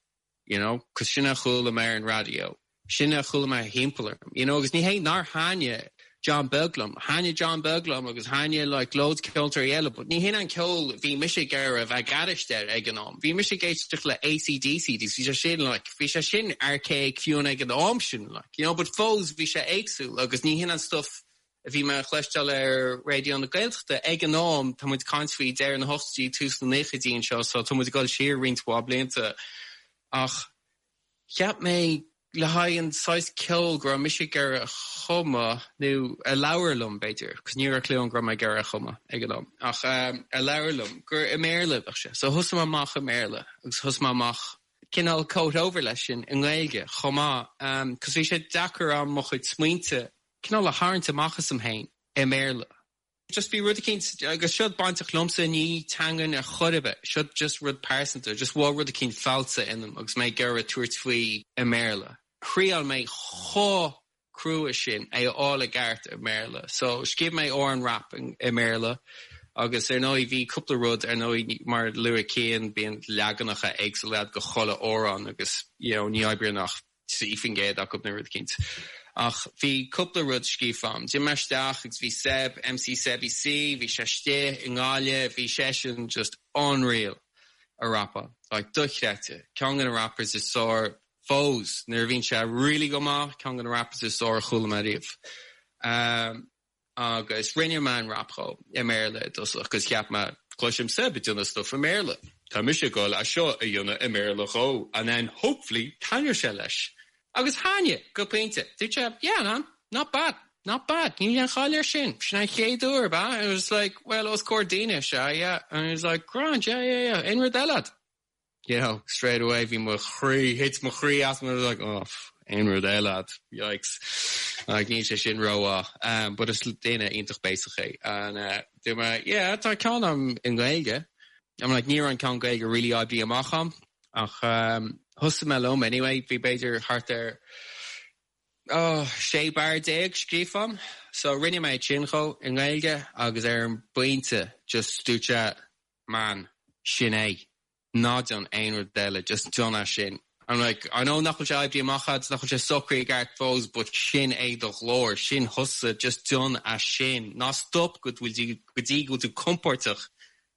you know, 'cause sin a chuala mé ar an raidió, sin a chuala mé thimpeall orm, you know, agus ní hé nár thaitnigh John Beag liom, thaitnigh John Beag liom agus thaitnigh like loads ceoltóirí eile, but ní hin an ceol a bhí mise ag iarraidh a bheith ag éisteacht air ag an am. Bhí mise ag éisteacht le AC/DC agus bhí sé sin like, bhí sé sin archaic fiú ag an am sin like, you know, but fós bhí sé éagsúil agus ní hin an stuff a bhí mé a chloisteáil ar Raidió na Gaeltachta ag an am, tá muid ag caint faoi deireadh na hochtóidí, tús na naochaidí anseo, so tá muid ag dul siar roinnt mhaith blianta. Ach cheap mé le haghaidh an saghas ceoil go raibh mise ag iarraidh a chumadh, nó a labhair liom b'fhéidir, cos ní raibh clue agam go raibh mé ag iarraidh a chumadh ag an am, ach a labhair liom, gur i mBéarla a bheadh sé. So thosaigh mé amach i mBéarla agus thosaigh mé amach cineál coat over leis sin i nGaeilge chomh maith, cos bhí sé deacair a'm mo chuid smaointe cineál a tharraingt amach asam féin i mBéarla. Just bhí rud eicínt, agus seo bainteach liomsa, ní teangain ar chor ar bith, seo just rud pearsanta, just bhí rud eicínt falsa ionam agus mé ag iarraidh tabhairt faoi i mBéarla. Thriail mé chomh crua sin é a fháil i gceart i mBéarla. So scríobh mé amhrán rap i mBéarla agus ar ndóigh bhí cúpla rud, ar ndóigh mar a luaigh Cian, bíonn leaganacha éagsúla a'd go chuile amhrán agus you know ní oibríonn ach 3% acu nó rud eicínt. Ach bhí cúpla rud scríofa a'm. D'imigh mé isteach agus bhí Seb, MC Sebby C, bhí sé istigh i nGaillimh, bhí seisean just unreal a rapáil. Like dochreidte. Ceann de na rappers is fearr fós nuair a bhíonn sé really go maith, ceann de na rappers is fearr a chuala mé riamh. Agus rinne mé an rap dhó i mBéarla i dtosach 'cause cheap mé, cloisim Seb ag déanamh stuff i mBéarla, tá mise ag goil é seo a dhéanamh i mBéarla dhó and then hopefully taitneoidh sé leis. Agus thaitnigh, go pointe. Dúirt sé, yeah man, not bad, not bad, níl aon chaill air sin, sin an chéad uair, ab ea? And I was like, well, os comhair daoine, sea, yeah. And he was like, grand, yeah, yeah, yeah, aon rud eile a'd? you know, straight away bhí mo chroí, thit mo chroí as I was like, oh, aon rud eile a'd, yikes. Like, níl sé sin rómhaith. Um, but is duine iontach béasach é. And, uh, dúirt mé, yeah, tá ceann a'm i nGaeilge. I'm like, ní raibh an ceann Gaeilge really oibrithe amach a'm. Ach, um, thosaigh mé liom anyway, bhí b'fhéidir thart ar, oh, 16 barr scríofa a'm. So rinne mé sin dhó i nGaeilge agus ar an bpointe just dúirt sé, man, sin é. Ná déan aon rud eile, just déan é sin. I'm like, I know nach bhfuil sé oibrithe amach agat, nach bhfuil sé socraithe i gceart fós, but sin é do ghlór, sin thusa, just déan é sin. Ná stop go bhfuil tú, go dtí go bhfuil tú compordach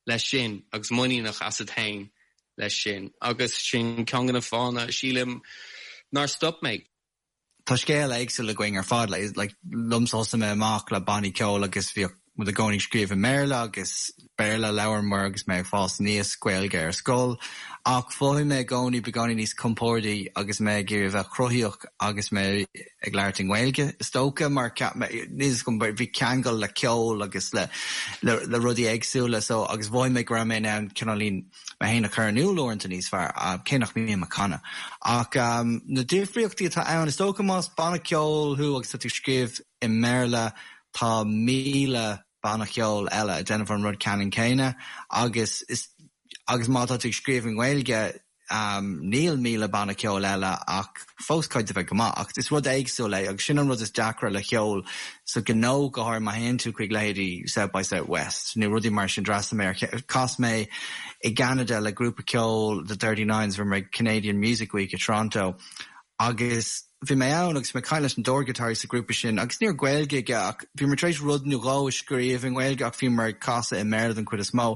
leis sin agus muiníneach asat féin leis sin. Agus sin ceann de na fáthanna, sílim, nár stop mé. Tá scéal éagsúil againn ar fad. Like, liomsa thosaigh mé amach le bannaí ceoil agus bhíodh muid i gcónaí ag scríobh i mBéarla agus Béarla a labhramar agus mé ag fás aníos, Gaeilge ar scoil. Ach mhothaigh mé i gcónaí beagáinín níos compórdaí agus mé ag iarraidh a bheith cruthaíoch agus mé ag labhairt i nGaeilge, is dócha, mar cheap mé, níl 'fhios agam, bhí ceangal le ceol agus le le rudaí éagsúla so agus mhothaigh mé go raibh mé in ann cineáilín mé féin a chur in iúl uaireanta níos fearr, cé nach mbím ag canadh. Ach na difríochtaí atá ann, is dócha más banna ceoil thú agus tá tú ag scríobh i mBéarla, tá 1,000 banna ceoil eile ag déanamh an rud ceannann céanna agus is agus má tá tú ag scríobh i nGaeilge, Níl 1,000 banna ceoil eile ach fós caithfidh tú bheith go maith. Ach is rud éagsúil é agus sin an rud is deacra le ceol sa ghnó, go háirithe má théann tú chuig leithéidí South by South West nó rudaí mar sin. D'fhreastail mé ar, chas mé i gCeanada le grúpa ceoil The Thirty Nines, bhí mé ag Canadian Music Week i Toronto agus bhí mé ann agus bhí mé ag caint leis an dordghiotáraí sa ghrúpa sin agus ní raibh Gaeilge aige ach bhíomar tar éis rud nó dhó a scríobh i nGaeilge ach bhíomar ag casadh i mBéarla den chuid is mó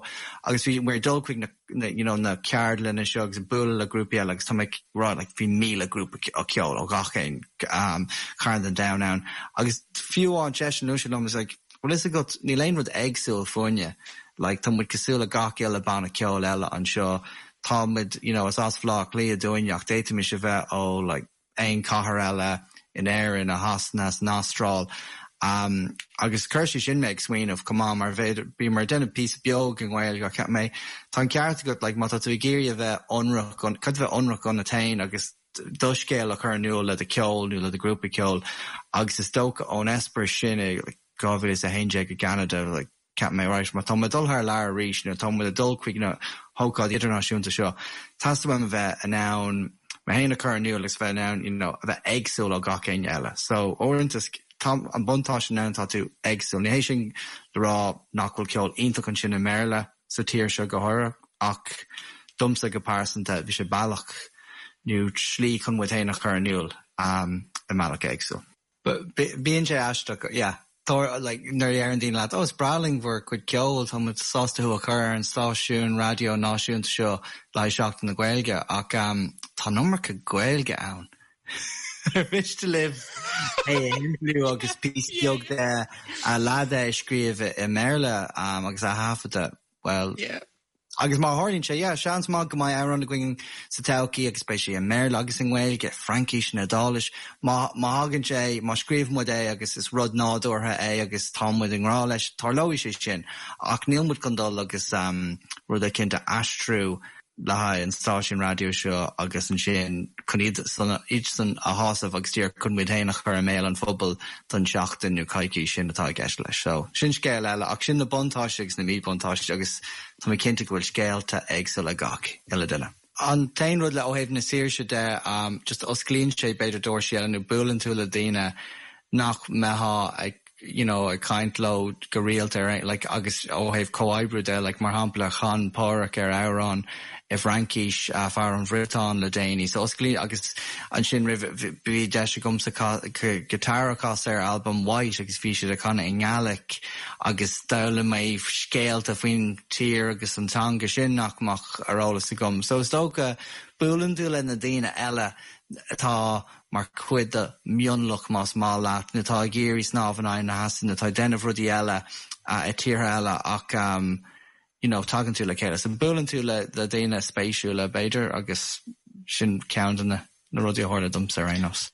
agus bhíomar ag dul chuig na na you know na ceardlanna seo agus ag bualadh le grúpaí eile agus tá mé ag rá like bhí 1,000 grúpa ceoil ó gach aon um chearn den domhan ann agus fiú amháin seisean luaigh sé liom is like bhfuil fhios agat níl aon rud éagsúil fúinne like tá muid cosúil le gach uile banna ceoil eile anseo. Tá muid, you know, is as Bhaile Átha Cliath dúinn ach d'fhéadfaimis a bheith ó like aon chathair eile in Éirinn, i Shasana, san Astráil. Um, agus chuir sé sin mé ag smaoineamh chomh maith mar b'fhéidir bhíomar ag déanamh píosa beag i nGaeilge ach cheap mé tá an ceart agat like má tá tú ag iarraidh a bheith ionraic caithfidh tú bheith ionraic ionat féin agus do scéal a chur in iúl le do cheol nó le do ghrúpa ceoil agus is dócha ón eispéireas sin i like 2011 i gCeanada like Cheap mé, right, má tá mé ag dul thar lear arís nó tá muid ag dul chuig na hócáidí idirnáisiúnta seo, teastaíonn uaim a bheith in ann mé féin a chur in iúl agus bheith in ann, you know, a bheith éagsúil ó gach éinne eile. So, uaireanta, tá an buntáiste ann, tá tú éagsúil. Ní hé sin le rá nach bhfuil ceol iontach ansin i mBéarla sa tír seo go háirithe, ach domsa go pearsanta, bhí sé bealach nó slí chun muid féin a chur in iúl i mbealach éagsúil. Bíonn sé aisteach, yeah. Tá, like, nuair a deireann daoine leat, oh, is breá linn bhur gcuid ceoil, tá muid sásta thú a chur ar an stáisiún raidió náisiúnta seo le haghaidh Seachtain na Gaeilge, ach um, tá an iomarca Gaeilge ann. Ar mhiste libh é a shimpliú agus píosa beag de a leath de a scríobh i mBéarla um, agus a thaifeadadh? Well, yeah. Agus má tharlaíonn sé, yeah, seans maith go mbeidh amhrán againn sa todhchaí agus beidh sé i mBéarla agus i nGaeilge, Fraincis nó Iodáilis. Má, má thagann sé, má scríobhann muid é agus is rud nádúrtha é agus tá muid i ngrá leis, tarlóidh sé sin. Ach níl muid chun dul agus rud eicínt a aistriú le haghaidh an stáisiún raidió seo agus ansin chun iad san, iad san a shásamh agus díreach chun muid féin a chur i mbéal an phobail don tseachtain nó coicís sin atá i gceist leis. So, sin scéal eile ach sin na buntáistí agus na míbhuntáistí agus tá mé cinnte go bhfuil scéalta éagsúla ag gach uile duine. An t-aon rud le ó thaobh na saoirse de, just osclaíonn sé b'fhéidir doirsí eile nó buaileann tú le daoine nach mbeifeá ag you know ag caint leo go rialta ar aon like agus ó thaobh comhoibriú de like mar shampla chan Páraic ar amhrán i bhFraincis fear ón Bhriotáin le déanaí so osclaíonn agus ansin roimh bhí deis agamsa guitar a chasadh ar albam White agus bhí siad ag canadh i nGaelic agus d'fhoghlaim mé scéalta faoin tír agus an teanga sin nach mbeadh ar eolas agam so is dócha buaileann tú le na daoine eile atá mar chuid de mhionlach más maith leat, nó atá ag iarraidh snámh in aghaidh na heasa, nó atá ag déanamh rudaí eile i tíortha eile ach you know tagann tú le chéile. So buaileann tú le le daoine spéisiúla b'fhéidir agus sin ceann de na na rudaí a tharla domsa ar aon nós.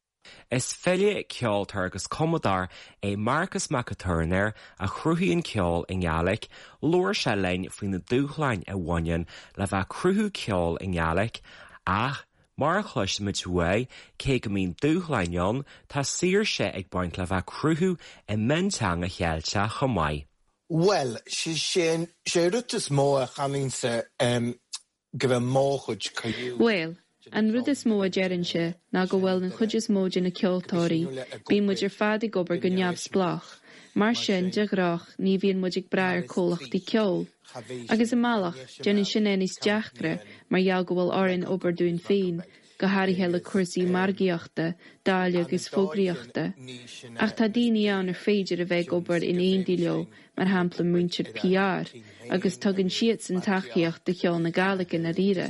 Is file, ceoltóir agus cumadóir é Marcas Mac an Tuairneir a chruthaíonn ceol i nGaelic. Labhair sé linn faoi na dúshláin a bhaineann le bheith ag cruthú ceol i nGaelic ach Mar a chloisimid uaidh, cé go mbíonn dúshláin ann, tá saoirse ag baint le bheith ag cruthú i mionteanga Cheilteach chomh maith. Bhuel, sé an rud is mó a chanainnse go bhfuil mo chuid criú. Bhuel, an rud is mó a déarfainnse ná go bhfuil an chuid is mó de na ceoltóirí, bíonn muid ar fad ag obair go neamhspleách, mar sin, de ghnách, ní bhíonn muid ag brath ar comhlachtaí ceoil. Agus i mbealach, déanann sin é níos deacra mar gheall go bhfuil orainn obair dúinn féin, go háirithe le cúrsaí margaíochta, dáileadh agus fógraíochta. Ach tá daoine ann ar féidir a bheith ag obair in éindí leo, mar shampla muintir PR, agus tugann siadsan tacaíocht do cheol na Gàidhlig i ndáiríre.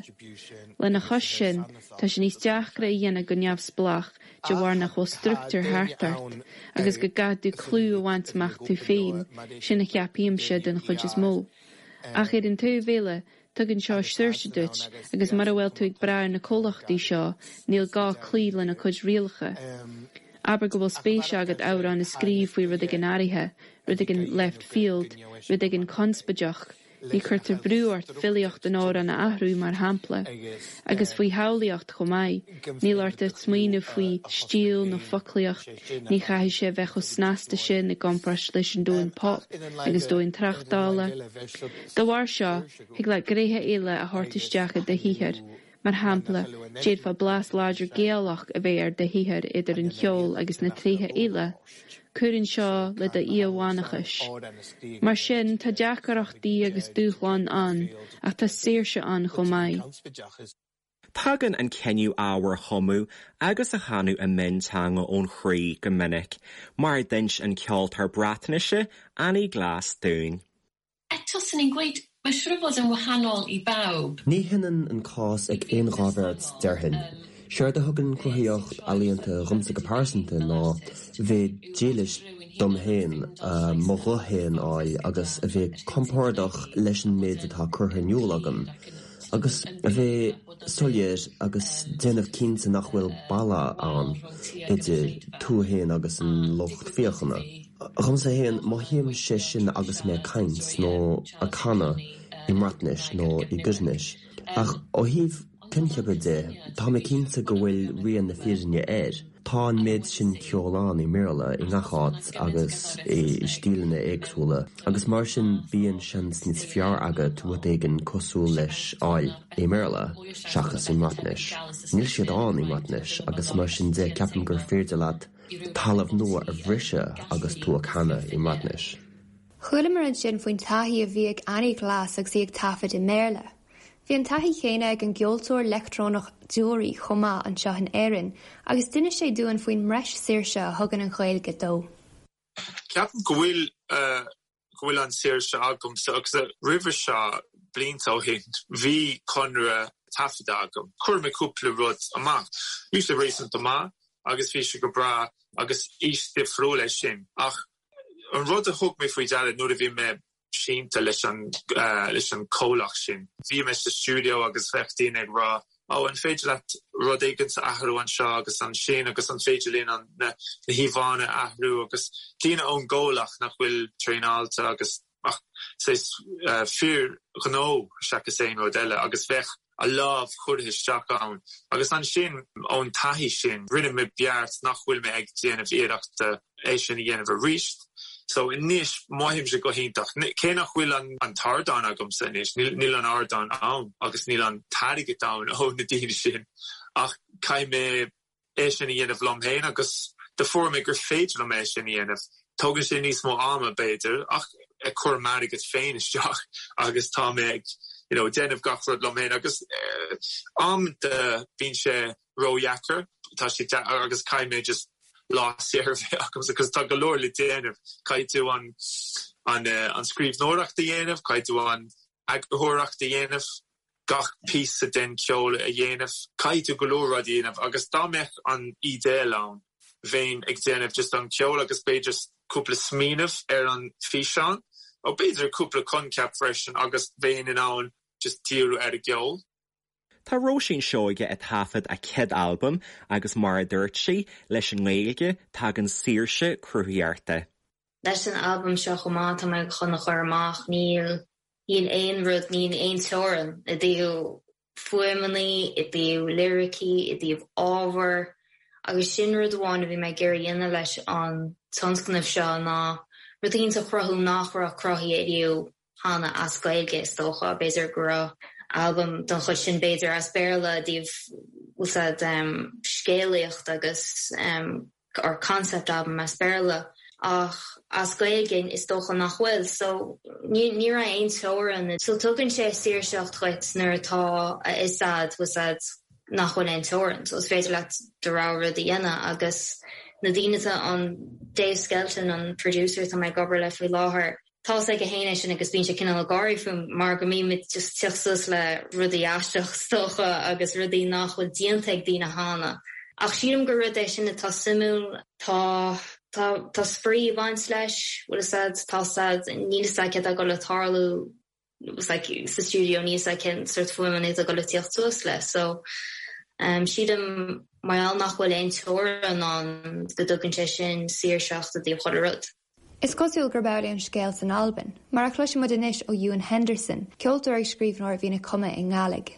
Lena chois sin, tá sé níos deacra a dhéanamh go neamhspleách de bharr nach bhfuil struchtúr thart ort, agus go gcaithfidh tú clú a bhaint amach tú féin, sin a cheapaimse den chuid is mó. Ach ar an taobh eile, tugann seo saoirse duit, agus mura bhfuil tú ag brath ar na comhlachtaí seo, níl gá cloí lena cuid rialacha. Abair go bhfuil spéis agat amhrán a scríobh faoi rud éigin áirithe, rud éigin left field, rud éigin conspóideach, Ní cuirtear brú ort filíocht an amhráin a athrú, mar shampla. Agus faoi shamhlaíocht chomh maith. Níl ort ach smaoineamh faoi stíl nó foclaíocht, ní chaithfidh sé a bheith chomh snasta sin i gcomparáid leis an domhan pop agus domhan tráchtála. Dá bharr seo, thig leat gnéithe eile a thabhairt isteach i do shaothar. Mar shampla, d'fhéadfá blas láidir Gaelach a bheith ar do shaothar idir an cheol agus na tréithe eile. Cuireann seo le do íomhánachas. Mar sin, tá deacrachtaí agus dúshláin ann, ach tá saoirse ann chomh maith. Tagann an cinneadh ábhar a chumadh agus a chanadh i mionteanga ón chroí go minic, mar a d'inis an ceoltóir Breatnaise Ani Glass dúinn. Eto, 'swn i'n gweud, mae'n siŵr o fod yn wahanol i bawb. Ní hionann an cás ag aon dá bheirt, déarfainn. Séard a thugann cruthaíocht ealaíonta dhomsa go pearsanta ná bheith dílis dom féin, mo ghuth féin a fháil agus a bheith compordach leis an méid atá curtha in iúl agam. Agus a bheith soiléir agus déanamh cinnte nach bhfuil balla ann idir tú fhéin agus an lucht féachana. Dhomsa fhéin, mothaím sé sin agus mé ag caint nó ag canadh i mBreatnais nó i gCoirnis. Ach ó thaobh coincheapa de, tá mé cinnte go bhfuil rian na fírinne air. Tá an méid sin ceoil ann i mBéarla i ngach áit agus i stíleanna éagsúla agus mar sin bíonn seans níos fearr agat rud éigin cosúil leis a fháil i mBéarla seachas i mBreatnais. Níl siad ann i mBreatnais agus mar sin de ceapaim gur féidir leat talamh nua a bhriseadh agus tú ag canadh i mBreatnais. Chualamar ansin faoin taithí a bhí ag Annie Glass agus í ag taifead i mBéarla. Bhí an taithí chéanna ag an gceoltóir leictreonach Deoraí chomh maith anseo in Éirinn agus d'inis sé dúinn faoin mbreis saoirse a thugann an Ghaeilge dó. Ceapaim go bhfuil go bhfuil an saoirse agamsa agus roimhe seo blianta ó shin bhí conradh taifeadta agam. Chuir mé cúpla rud amach. Bhí sé réasúnta maith agus bhí sé go breá agus aois difriúil é sin ach An rud a thug mé faoi deara nuair a bhí mé sínte leis an leis an comhlacht sin, bhí mé sa stiúideo agus bheadh daoine ag rá 'Ó, an féidir leat rud éigin a athrú anseo agus ansin agus an féidir linn an na híomhánna a athrú agus daoine ón gcomhlacht nach bhfuil traenáilte agus ach saghas fir ghnó seachas aon rud eile agus bheadh a lámh curtha isteach ann. Agus ansin ón taithí sin rinne mé beart nach bhfuil mé ag déanamh iarrachta é sin a dhéanamh arís. So anois mothaímse go hiontach. Cé nach bhfuil an t-ardán agamsa anois, níl an ardán ann agus níl an t-airgead ann ó na daoine sin ach caithfidh mé é sin a dhéanamh liom féin agus do fuair mé gur féidir liom é sin a dhéanamh. Tógann sé níos mó ama, b'fhéidir, ach ag cur m'airgead féin isteach agus tá mé ag you know déanamh gach rud liom féin agus amanta bíonn sé ródheacair, tá sé agus caithfidh mé just lá saor a bheith agamsa agus tá go leor le déanamh. Caithfidh tú an an an scríbhneoireacht a dhéanamh, caithfidh tú an eagarthóireacht a dhéanamh, gach píosa den cheol a dhéanamh. Caithfidh tú go leor rudaí a dhéanamh agus dá mbeadh an idéal ann, bheinn ag déanamh just an ceol agus b'fhéidir cúpla smaoineamh ar an físeán, nó b'fhéidir cúpla coincheap freisin agus bheinn in ann just díriú ar an gceol. Tá Róisín Seoige ag taifead a céad albam agus mar a dúirt sí, leis an nGaeilge, tagann saoirse cruthaitheachta. Leis an albam seo chomh maith atá mé chun a chur amach, níl Níl aon rud, níl aon teorainn i dtaobh fuaimeanna, i dtaobh liricí, i dtaobh ábhair agus sin rud amháin a bhí mé ag iarraidh a dhéanamh leis an tionscnamh seo ná rud éicint a chruthú nach raibh cruthaithe ariamh cheana as Gaeilge is dócha. B'fhéidir go raibh albam den chuid sin b'fhéidir as Béarla i dtaobh bhfuil a fhios a'd scéalaíocht agus or concept album as Béarla ach as Gaeilge is dócha nach bhfuil so ní ní raibh aon teorainn so tugann sé saoirseacht dhuit nuair atá a fhios a'd bhfuil a fhios a'd nach bhfuil aon teorainn so is féidir leat do rogha rud a dhéanamh agus na daoine atá an Dave Skelton an producer atá mé ag obair le faoi láthair Tá 's aige fhéin é sin agus bíonn sé cineál ag gáirí fúm mar go mbímid just teacht suas le rudaí aisteach is dócha agus rudaí nach bhfuil déanta ag daoine cheana. Ach sílim gur rud é sin atá suimiúil. Tá, tá, tá spraoi ag baint leis, bhfuil 'fhios a'd, tá 's a'd, níl 'fhios a'd céard atá ag dul le tarlú like sa stiúideo, níl 'fhios a'd cén sórt fuaimeanna atá ag dul le tíocht suas le. So, sílim mar gheall nach bhfuil aon teorainn ann go dtugann sé sin saoirseacht i dtaobh chuile rud. Is cosúil gurb amhlaidh an scéal san Albain, mar a chloisfidh muid anois ó Ewan Henderson, ceoltóir agus scríbhneoir a bhíonn ag cumadh i nGàidhlig.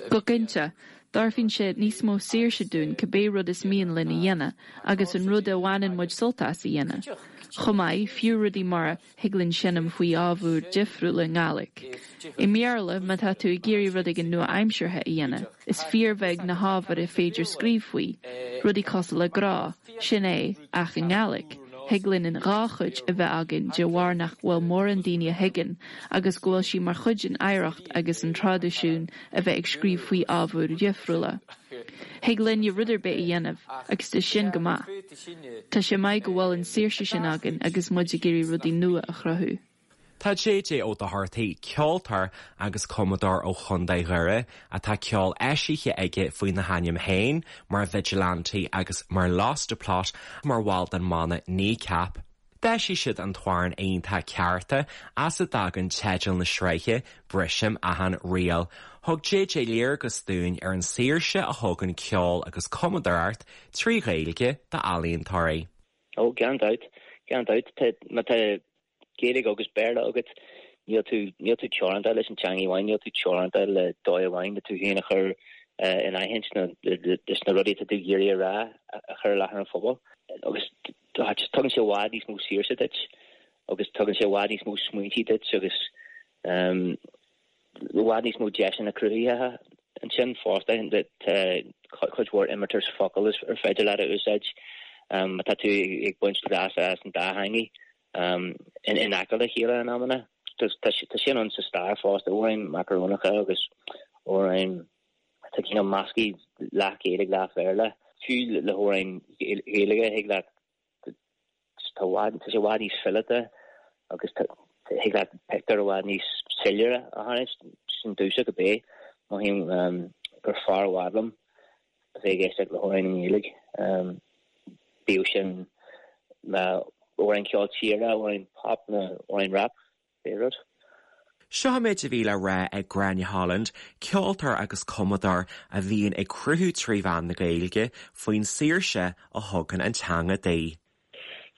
Go cinnte, tabharfaidh sé níos mó saoirse dúinn cibé rud is mian linn a dhéanamh agus an rud a bhaineann muid sult as a dhéanamh. Chomh maith, fiú rudaí mar a thig linn seinm faoi ábhair difriúla i nGàidhlig. I mBéarla, má tá tú ag iarraidh rud éigin nua-aimseartha a dhéanamh, is fíorbheag na hábhair a féidir scríobh faoi, rudaí cosúil le grá, sin é, ach i nGàidhlig, thig linn an dhá chuid a bheith againn de bharr nach bhfuil mórán daoine a thuigeann agus go bhfuil sí mar chuid den oidhreacht agus an traidisiún a bheith ag scríobh faoi ábhair dhifriúla. Thig linne rud ar bith a dhéanamh agus tá sin go maith. Tá sé maith go bhfuil an saoirse sin againn agus muid ag iarraidh rudaí nua a chruthú. Tá JJ Ó Dochartaigh, ceoltóir agus cumadóir ó Chontae Dhoire, atá ceol eisithe aige faoina hainm féin mar Vigilante agus mar Lost a Plot, mar bhall den mbanna Kneecap. D'eisigh siad an t-amhrán iontach 'Cearta', as a dtagann teideal na sraithe, Brisim Achan Riail. Thug JJ léargas dúinn ar an saoirse a thugann ceol agus cumadóireacht trí Ghaeilge d'ealaíontóirí. Ó, gan dabht, gan dabht. Má tá Gaeilge agus Béarla agat, níl tú, níl tú teoranta leis an teanga amháin, níl tú teoranta le dóigh amháin le tú féin a chur in aithint nó leis na rudaí atá tú ag iarraidh a rá a chur i láthair an phobail. Agus tugann sé i bhfad níos mó saoirse duit agus tugann sé i bhfad níos mó smaointe duit agus i bhfad níos mó deiseanna cruthaitheacha ansin fosta. Tá cuid mhór imeartas focal is ar féidir leat a úsáid má tá tú ag baint leas as an dá theangaidh in aice le chéile in amanna. Tá sin ann sa stair fosta, amhráin macarónacha agus amhráin atá cineál measctha leath Gaeilge leath Bhéarla. Fiú le hamhráin Ghaeilge thig leat tá sé i bhfad níos fileata agus thig leat pictiúr i bhfad níos soiléire a tharraingt. Sin domhsa cibé. Mothaím gur fearr i bhfad liom a bheith ag éisteacht le hamhráin i nGaeilge. Bíodh sin amhráin ceol tíre, amhráin pop nó amhráin rap, pé rud. Seo an méid a bhí le rá ag Gráinne Holland, ceoltóir agus cumadóir a bhíonn ag cruthú trí mheán na Gaeilge, faoin saoirse a thugann an teanga di.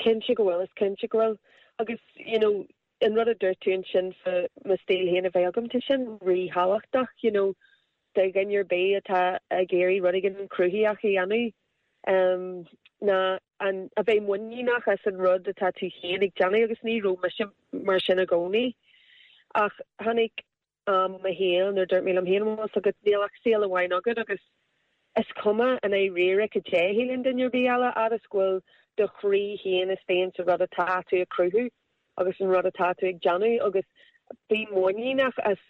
Cinnte go bhfuil, is cinnte go bhfuil. Agus, you know, an rud a dúirt tú ansin fá mo stíl féin a bheith agam, tá sin ríthábhachtach, you know, do dhuine ar bith atá ag iarraidh rud éigin cruthaitheach a dhéanamh, ná an, a bheith muiníneach as an rud atá tú féin ag déanamh agus ní raibh mise mar sin i gcónaí. Ach tháinig am i mo shaol nuair dúirt mé liom féin, bhfuil fhios agat, níl ach saol amháin agat agus is cuma i ndáiríre cad é a shíleann duine ar bith eile, fhad is go bhfuil do chroí féin istigh insa rud atá tú ag cruthú. agus an rud atá tú ag déanamh agus bí muiníneach as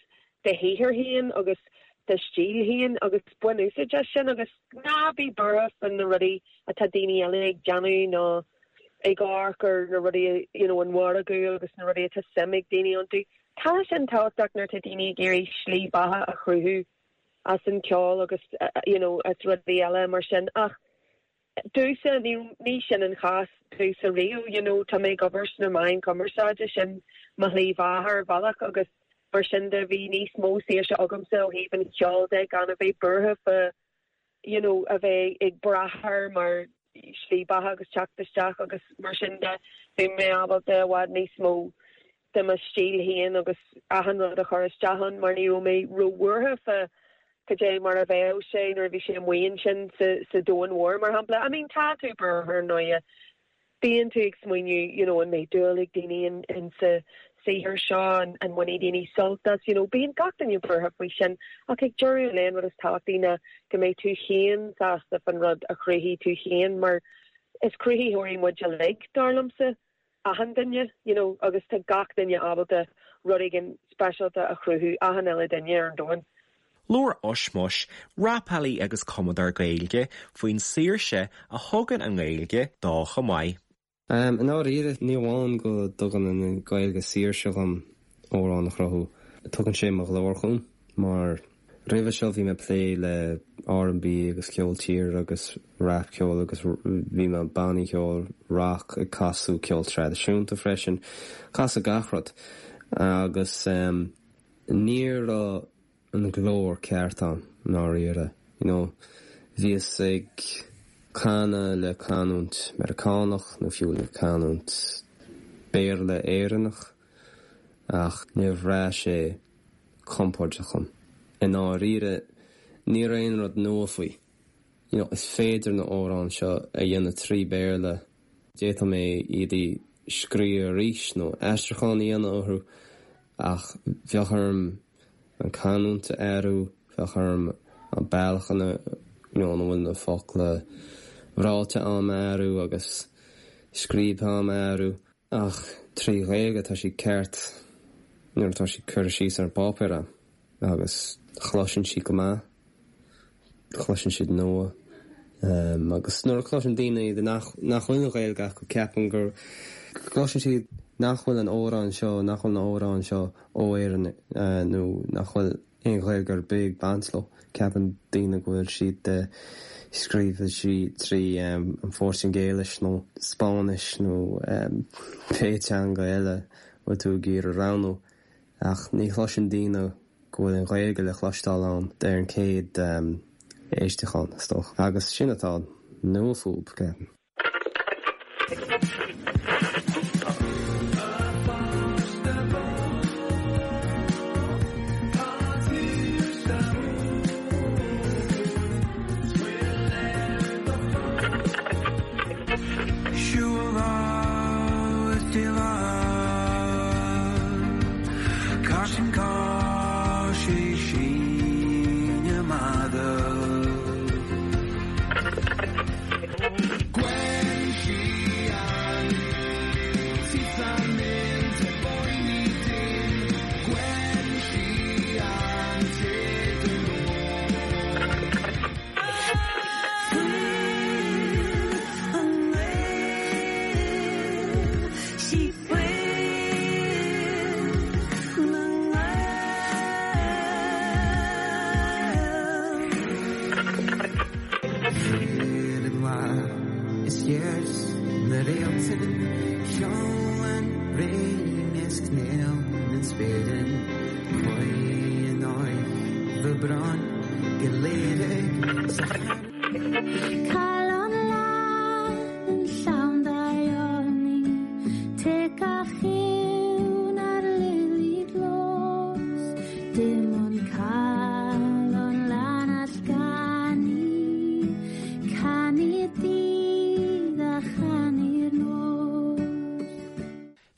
do shaothar féin agus do stíl féin agus bain úsáid as sin agus ná bí buartha fá na rudaí atá daoine eile ag déanamh nó ag amharc ar na rudaí you know an mhargadh agus na rudaí atá suim ag daoine iontu. Tá sin tábhachtach nuair atá daoine ag iarraidh slí beatha a chruthú as an ceol agus you know as rudaí eile mar sin ach Domhsa, ní sin an chás domhsa riamh, you know, tá mé ag obair sna meáin chumarsáide, sin mo shlí bheatha ar bhealach agus mar sin de bhí níos mó saoirse agamsa ó thaobh an cheoil de gan a bheith buartha fá you know a bheith ag brath air mar shlí beatha agus teacht isteach agus mar sin de bhí mé ábalta i bhfad níos mó de mo stíl féin agus achan rud a chur isteach ann mar ní raibh mé róbhuartha fá cad é mar a bheadh sé nuair a bhí sé amuigh ansin sa, sa domhan mhór, mar shampla. I mean, tá tú buartha ar ndóighe. Bíonn tú ag smaoineamh, you know, an mbeidh dúil ag daoine in, in sa saothar seo, an, an mbainfidh daoine sult as, you know, bíonn gach duine buartha faoi sin ach ag deireadh an lae an rud is tábhachtaí ná go mbeidh tú féin sásta fan rud a chruthaigh tú féin mar is cruthaitheoirí muid uilig, dar liomsa. achan duine, you know, agus tá gach duine ábalta rud éigin speisialta a chruthú, achan uile duine ar an domhan. Labhair Ushmush, rapálaí agus cumadóir Gaeilge, faoin saoirse a thugann an Ghaeilge dó chomh maith. I ndáiríre, ní amháin go dtugann an Ghaeilge saoirse dhom amhrán a chruthú, tugann sé mo ghlór chugam mar Roimhe seo bhí mé ag plé le R&B agus ceol tíre agus rap ceol agus bhí mé i bannaí ceoil rock ag casadh ceol traidisiúnta freisin, casadh gach rud agus ní raibh an glór ceart ann i ndáiríre you know bhíos ag canadh le canúint Meiriceánach nó fiú le canúint Béarla Éireannach ach níor bhraith sé compordach dhom. I ndáiríre, ní raibh aon rud nua faoi. You know, is féidir na amhráin seo a dhéanamh trí Béarla, d'fhéadfadh mé iad a scríobh arís nó aistriúchán a dhéanamh orthu ach bheadh orm an canúint a athrú, bheadh orm an bealach ina you know, ina bhfuil na focla ráite a'm a athrú agus scríobhtha a'm a athrú. Ach trí Ghaeilge tá siad ceart nuair atá siad curtha síos ar an bpáipéar a'm agus chloiseann siad go maith, chloiseann siad nua. Agus nuair a chloiseann daoine iad nach nach bhfuil an Ghaeilge acu ceapaim go gcloiseann siad nach bhfuil an amhrán seo, nach bhfuil na amhráin seo ó Éirinn nó nach bhfuil aon Ghaeilge ar bith ag baint leo. Ceapann daoine go bhfuil siad de. Scríobhadh sí trí an Phortaingéilis nó Spáinnis nó pé teanga eile a bhfuil tú ag iarraidh roghnú ach ní chloiseann daoine go bhfuil an Ghaeilge le cloisteáil ann ar an chéad éisteachán, is dócha. Agus sin atá nua fúb, ceapaim.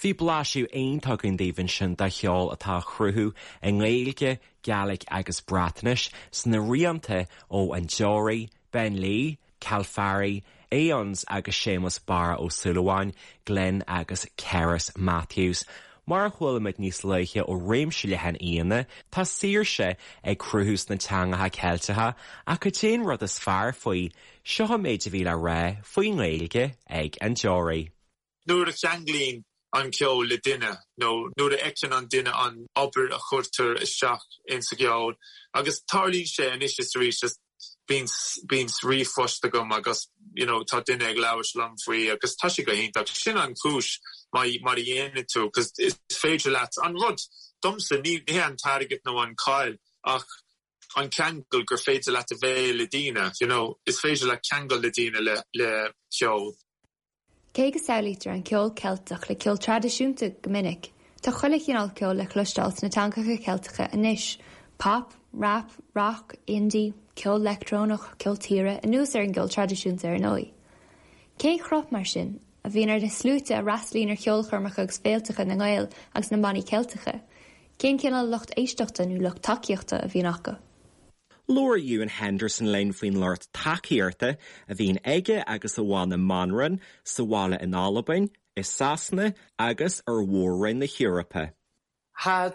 Bhí blaiseadh iontach againn daoibh ansin de cheol atá á chruthú i nGaeilge, Gàidhlig agus Breatnais sna rianta ó An Deoraí, Ben Lee, Calfari, Aeons agus Séamus Barra Ó Súilleabháin, Glen agus Cerys Matthews. Mar a chuala muid níos luaithe ó réimse leathan aíonna, tá saoirse ag cruthú sna teangacha Ceilteacha ach cad é an rud is fearr faoi? Seo an méid a bhí le rá faoin nGaeilge ag An Deoraí. Nuair a cheanglaíonn an ceol le duine nó nuair a fheiceann an duine an obair a chuirtear isteach insa gceol, agus tarlaíonn sé anois is arís, just bíonn bíonn ríomhphost agam agus you know tá duine ag labhairt liom faoi agus tá sé go hiontach. Sin an chúis mar mar a dhéanann tú, 'cause is féidir leat an rud, domsa ní hé an t-airgead nó an cáil ach an ceangal gur féidir leat a bheith le daoine, you know, is féidir leat ceangal le daoine le le ceol. Cé go samhlaítear an ceol Ceilteach le ceol traidisiúnta go minic, tá chuile chineál ceoil le cloisteáil sna teangacha Ceilteacha anois, pop, rap, rock, indie, ceol leictreonach, ceol tíre, anuas ar an gceol traidisiúnta ar ndóigh. Cén chruth, mar sin, a bhíonn ar na sluaite a fhreastalaíonn ar cheolchoirmeacha agus féilteacha na nGael agus na mbannaí Ceilteacha? Cén cineál lucht éisteachta nó lucht tacaíochta a bhíonn acu? Labhair Ewan Henderson linn faoin lucht tacaíochta a bhíonn aige agus a bhanna Manran sa bhaile in Albain, i Sasana agus ar mhór-roinn na hEorpa. Tá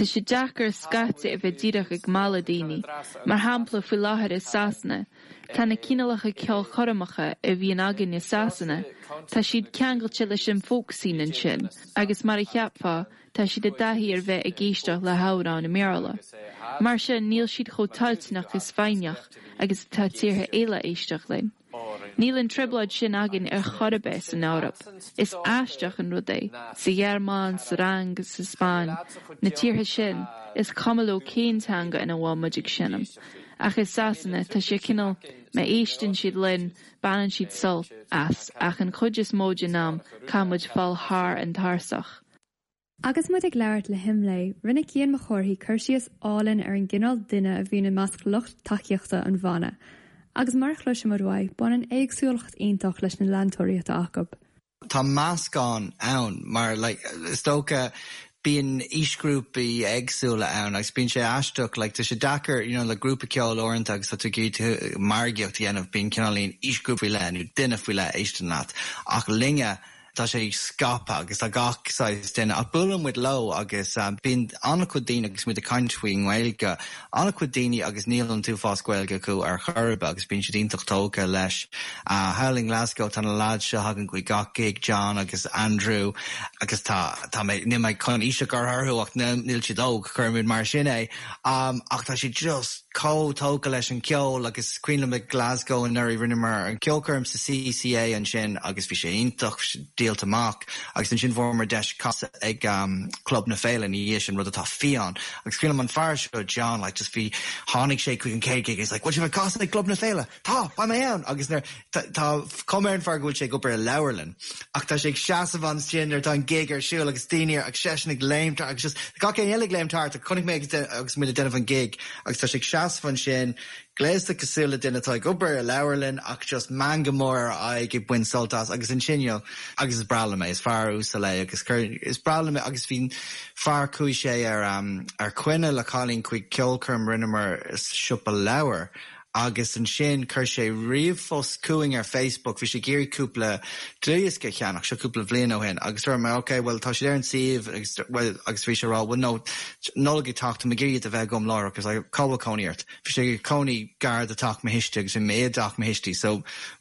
sé deacair scaití a bheith díreach ag mealladh daoine. Mar shampla, faoi láthair i Sasana, tá na cineálacha ceolchoirmeacha a bhíonn againn i Sasana, tá siad ceangailte leis an folk scene ansin agus mar a cheapfá, Tá siad i dtaithí ar bheith ag éisteacht le hamhráin i mBéarla. Mar sin, níl siad chomh toilteanach is foighneach agus atá tíortha eile éisteacht linn. Níl an trioblóid sin againn ar chor ar bith san Eoraip. Is aisteach an rud é, sa Ghearmáin, sa Fhrainc, sa Spáinn, na tíortha sin, is cuma leo cén teanga ina bhfuil muid ag seinm. Ach i Sasana, tá sé cineál, má éisteann siad linn, baineann siad sult as, ach an chuid is mó den am, caithfidh muid fáil thar an tarsach. Agus muid ag labhairt le hImlé, rinne Cian Mac Cárthaigh cur síos álainn ar an gcineál duine a bhíonn i measc lucht tacaíochta an bhanna. Agus mar a chloisimid uaidh, baineann éagsúlacht iontach leis na leantóirí atá acu. Tá meascán ann mar like is dócha bíonn aoisghrúpaí éagsúla ann agus bíonn sé aisteach like tá sé deacair you know le grúpa ceoil uaireanta agus tá tú ag iarraidh margaíocht a dhéanamh bíonn cineáilín aoisghrúpa faoi leith nó duine faoi leith a éisteann leat ach linne. Tá sé scaipthe agus tá gach saghas duine ach buaileann muid leo agus bíonn an-chuid daoine agus muid ag caint faoin nGaeilge, an-chuid daoine agus níl an t-uafás Gaeilge acu ar chor ar bith agus bíonn siad iontach tógtha leis. Thall i nGlasgow tá na lads seo a thagann chuig gach gig, John agus Andrew agus tá, tá mé, níl mé chun aois a chur orthu ach níl siad óg, cuirfimid mar sin é. Ach tá siad just chomh tógtha leis an cheol agus cuimhin liom i Glasgow anuraidh rinneamar an ceolchoirm sa CCA ansin agus bhí sé iontach, díolta amach agus ansin fuaireamar deis casadh ag Club na Féile ina dhiaidh sin, rud atá fiáin. Agus cuimhin liom an fear seo, John, like just bhí, tháinig sé chuig an chéad gig he's like, bhfuil sibh ag casadh ag Club na Féile? Tá, beidh mé ann! Agus nuair, tá cuma ar an fear go bhfuil sé ag obair i leabharlann ach tá sé ag seasamh ansin nuair atá an gig ar siúl agus daoine ar, agus seisean ag léimt thart agus just gach éinne eile ag léimt thart chonaic mé agus agus muid ag déanamh an gig agus tá sé ag seasamh ansin gléasta cosúil le duine atá ag obair i leabharlann ach just meangadh mór ar a aghaidh ag baint sult as agus ansin you know agus is breá liom é, is fear uasal é agus chuir, is breá liom é agus bhí fear chuaigh sé ar ar coinne le cailín chuig ceolchoirm rinneamar sa siopa leabhar Agus ansin chuir sé ríomhphost chugainn ar Facebook, bhí sé ag iarraidh cúpla dlúthdhiosca a cheannach, seo cúpla bhliain ó shin, agus dúirt mé ok, bhuel tá siad ar an suíomh agus bhuel agus bhí sé ag rá bhuel no, Nollaig ag teacht, tá mé ag iarraidh iad a bheith agam láithreach, agus I cá bhfuil cónaí ort? Bhí sé ag cónaí gar do teach mo thuistí agus bhí mé i dteach mo thuistí so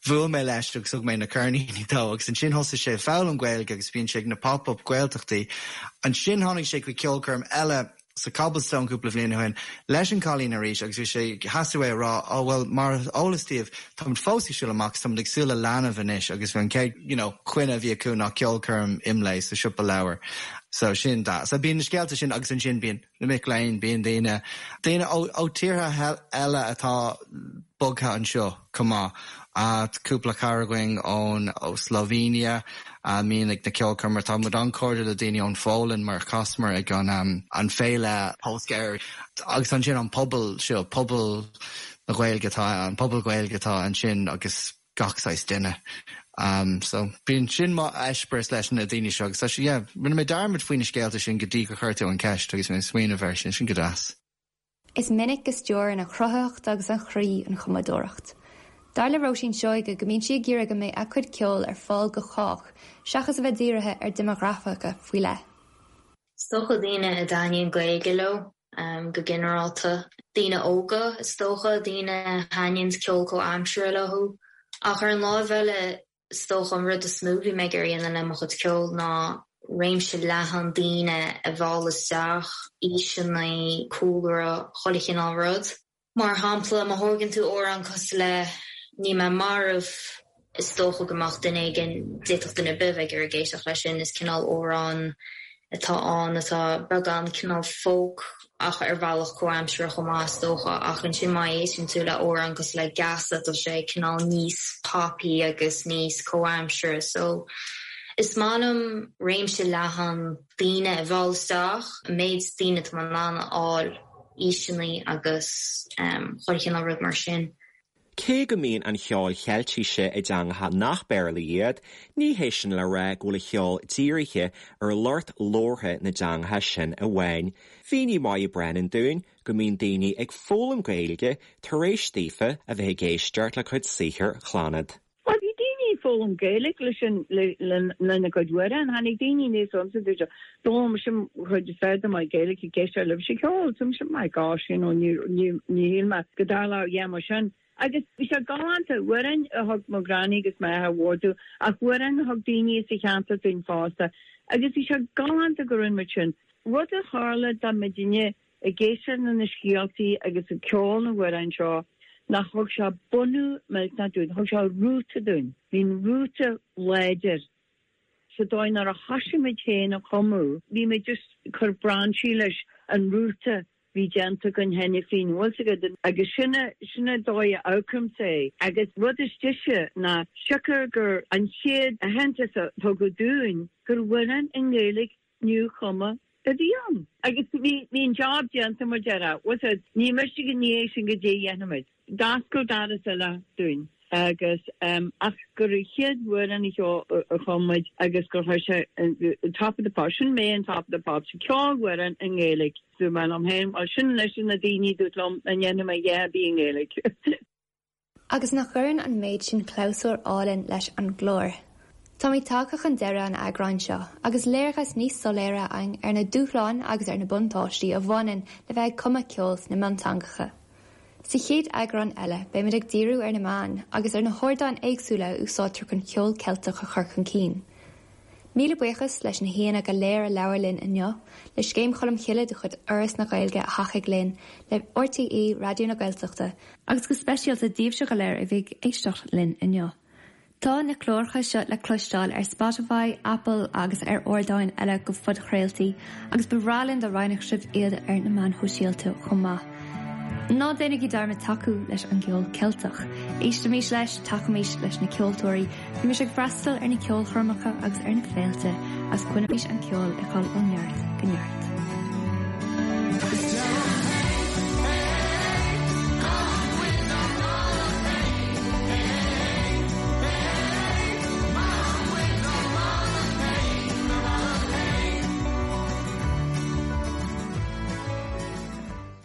bhuail mé leis agus thug mé na ceirníní dó agus ansin thosaigh sé ag foghlaim Gaeilge agus bíonn sé ag na pop-up Gaeltachtaí. Ansin tháinig sé chuig ceolchoirm eile sa Cobblestone cúpla bhliain ó shin leis an cailín arís agus bhí sé theastaigh uaidh a rá oh bhuel mar is eolas daoibh táimid fós ag siúl amach táimid ag súil le leanbh anois agus bhí an chéad you know coinne a bhí acu ná ceolchoirm IMLÉ sa siopa leabhar so sin that so bíonn na scéalta sin agus ansin bíonn na mic léinn bíonn daoine daoine ó ó tíortha eile atá bogtha anseo chomh maith. Cúpla cara againn ón ó Slovenia a mbíonn ag na ceolchoirmeacha. Tá muid an-chairdiúil le daoine ón Pholainn mar chasamar ag an an féile Polska agus ansin an pobal seo, pobal na Gaeilge atá an pobal Gaeilge atá ansin agus gach saghas duine. So bíonn sin mo eispéireas leis na daoine seo agus tá sé yeah, rinne mé dearmad faoi na scéalta sin go dtí gur chuir tú an ceist agus mé ag smaoineamh air sin, sin go deas. Is minic go stiúrann an chruthaitheacht agus an chroí an chumadóireacht. Dar le Róisín Seoige go mbíonn sí ag iarraidh go mbeidh a cuid ceoil ar fáil go chách seachas a bheith dírithe ar dhéimeagrafaic faoi leith. Is dócha daoine a dtaitníonn Gaeilge leo go ginearálta. Daoine óga is dócha, daoine a thaitníonns ceol comhaimseartha leo. Ach ar an láimh eile Is dócha an rud is mó a bhí mé ag iarraidh a dhéanamh le mo chuid ceoil ná réimse leathan daoine a mhealladh isteach, aoiseanna, cúlra, chuile chineál rud. Mar shampla, má thógann tú amhrán cosúil le Níl Mé Marbh, is dócha go mbeadh duine éigin, d'fhéadfadh duine ar bith a bheith ag iarraidh éisteacht leis sin, is cineál amhrán atá ann atá beagán cineál folk ach ar bhealach comhaimseartha chomh maith is dócha ach ansin má éisteann tú le amhrán cosúil le Geasa tá sé cineál níos poppy agus níos comhaimseartha so is maith liom réimse leathan daoine a mhealladh isteach, an méid daoine atá mé in ann a fháil, aoiseanna agus chuile chineál rud mar sin. Cé go mbíonn an cheol Cheiltise i dteangacha nach Béarla iad, ní hé sin le rá go bhfuil a cheol dírithe ar lucht labhartha na dteangacha sin amháin. Mhínigh Moya Brennan dúinn go mbíonn daoine ag foghlaim Gaeilge tar éis daofa a bheith ag éisteacht le cuid saothair Chlannad. Bhuel, bhí daoine ag foghlaim Gaeilge leis an, lena gcuid amhrán. Tháinig daoine aníos chugamsa dúirt siad, D'fhoghlaim mise an chuid is fearr de mo Ghaeilge ag éisteacht libhse ag ceol. So mise, my gosh, you know, ní, ní, ní shíl mé go dtarlódh a dhath mar sin. Agus bhí sé galánta, amhráin a thug mo ghranny agus m'athair mhór dúinn, ach amhráin a thug daoine sa cheantar dúinn fosta. Agus bhí sé galánta go rinne muid sin. Rud a tharla dá mbeidinne ag éisteacht le na scéaltaí agus ag ceol na n-amhrán seo ná thug sé bunú millteanach dúinn, thug sé rúta dúinn. Bhí an rúta láidir sa dóigh nuair a thoisigh muid féin a chumadh, bhí muid just ag cur brainsí leis an rúta bhí déanta againn cheana féin, bhfuil 's agat, agus sin a, sin a dóigh a amharcaimse é. Agus rud is deise ná siocair gur an chéad aitheantas a tugadh dúinn gur amhrán i nGaeilge nuachumtha a bhí ann. Agus bhí, bhí an job déanta, mar déarfá. Bhfuil 's agat, ní miste go ndiaidh sin goidé a dhéanfaimid. D'oscail doras eile dúinn agus ehm ach gur an chéad amhrán a chum muid agus gur chuir sé Top of the Pops, sin mé in Top of the Pops, ceol-amhrán i nGaeilge. Dúirt mé liom féin, bhuel sin anois na daoine a dúirt liom nach ndéanfaidh mé a dhath ar bith i nGaeilge. Agus nach gcuireann an méid sin clabhsúr álainn leis an gclár? Táimid tagtha chun deireadh an eagráin seo agus léargas níos soiléire againn ar na dúshláin agus ar na buntáistí a bhaineann le bheith ag cumadh ceoil sna mionteangacha. Sa chéad eagrán eile beimid ag díriú ar na meáin agus ar na hardáin éagsúla a úsáidtear chun ceol Ceilteach a chur chun cinn. Míle buíochas leis na haíonna go léir a labhair linn inniu, le Scéim Cholmcille de chuid Fhoras na Gaeilge a thacaigh linn, le RTÉ Raidió na Gaeltachta, agus go speisialta daoibhse go léir a bhí ag éisteacht linn inniu. Tá na cláracha seo le cloisteáil ar Spotify, Apple agus ar ardáin eile do phodchraoltaí agus ba bhreá linn dá roinnfeadh sibh iad ar na meáin shóisialta chomh maith. Ná déanaigí dearmad tacú leis an gceol Ceilteach. Éistimis leis, tacaímis leis na ceoltóirí, bímis ag freastal ar na ceolchoirmeacha agus ar na féilte agus coinnímis an ceol ag dul ó neart go neart.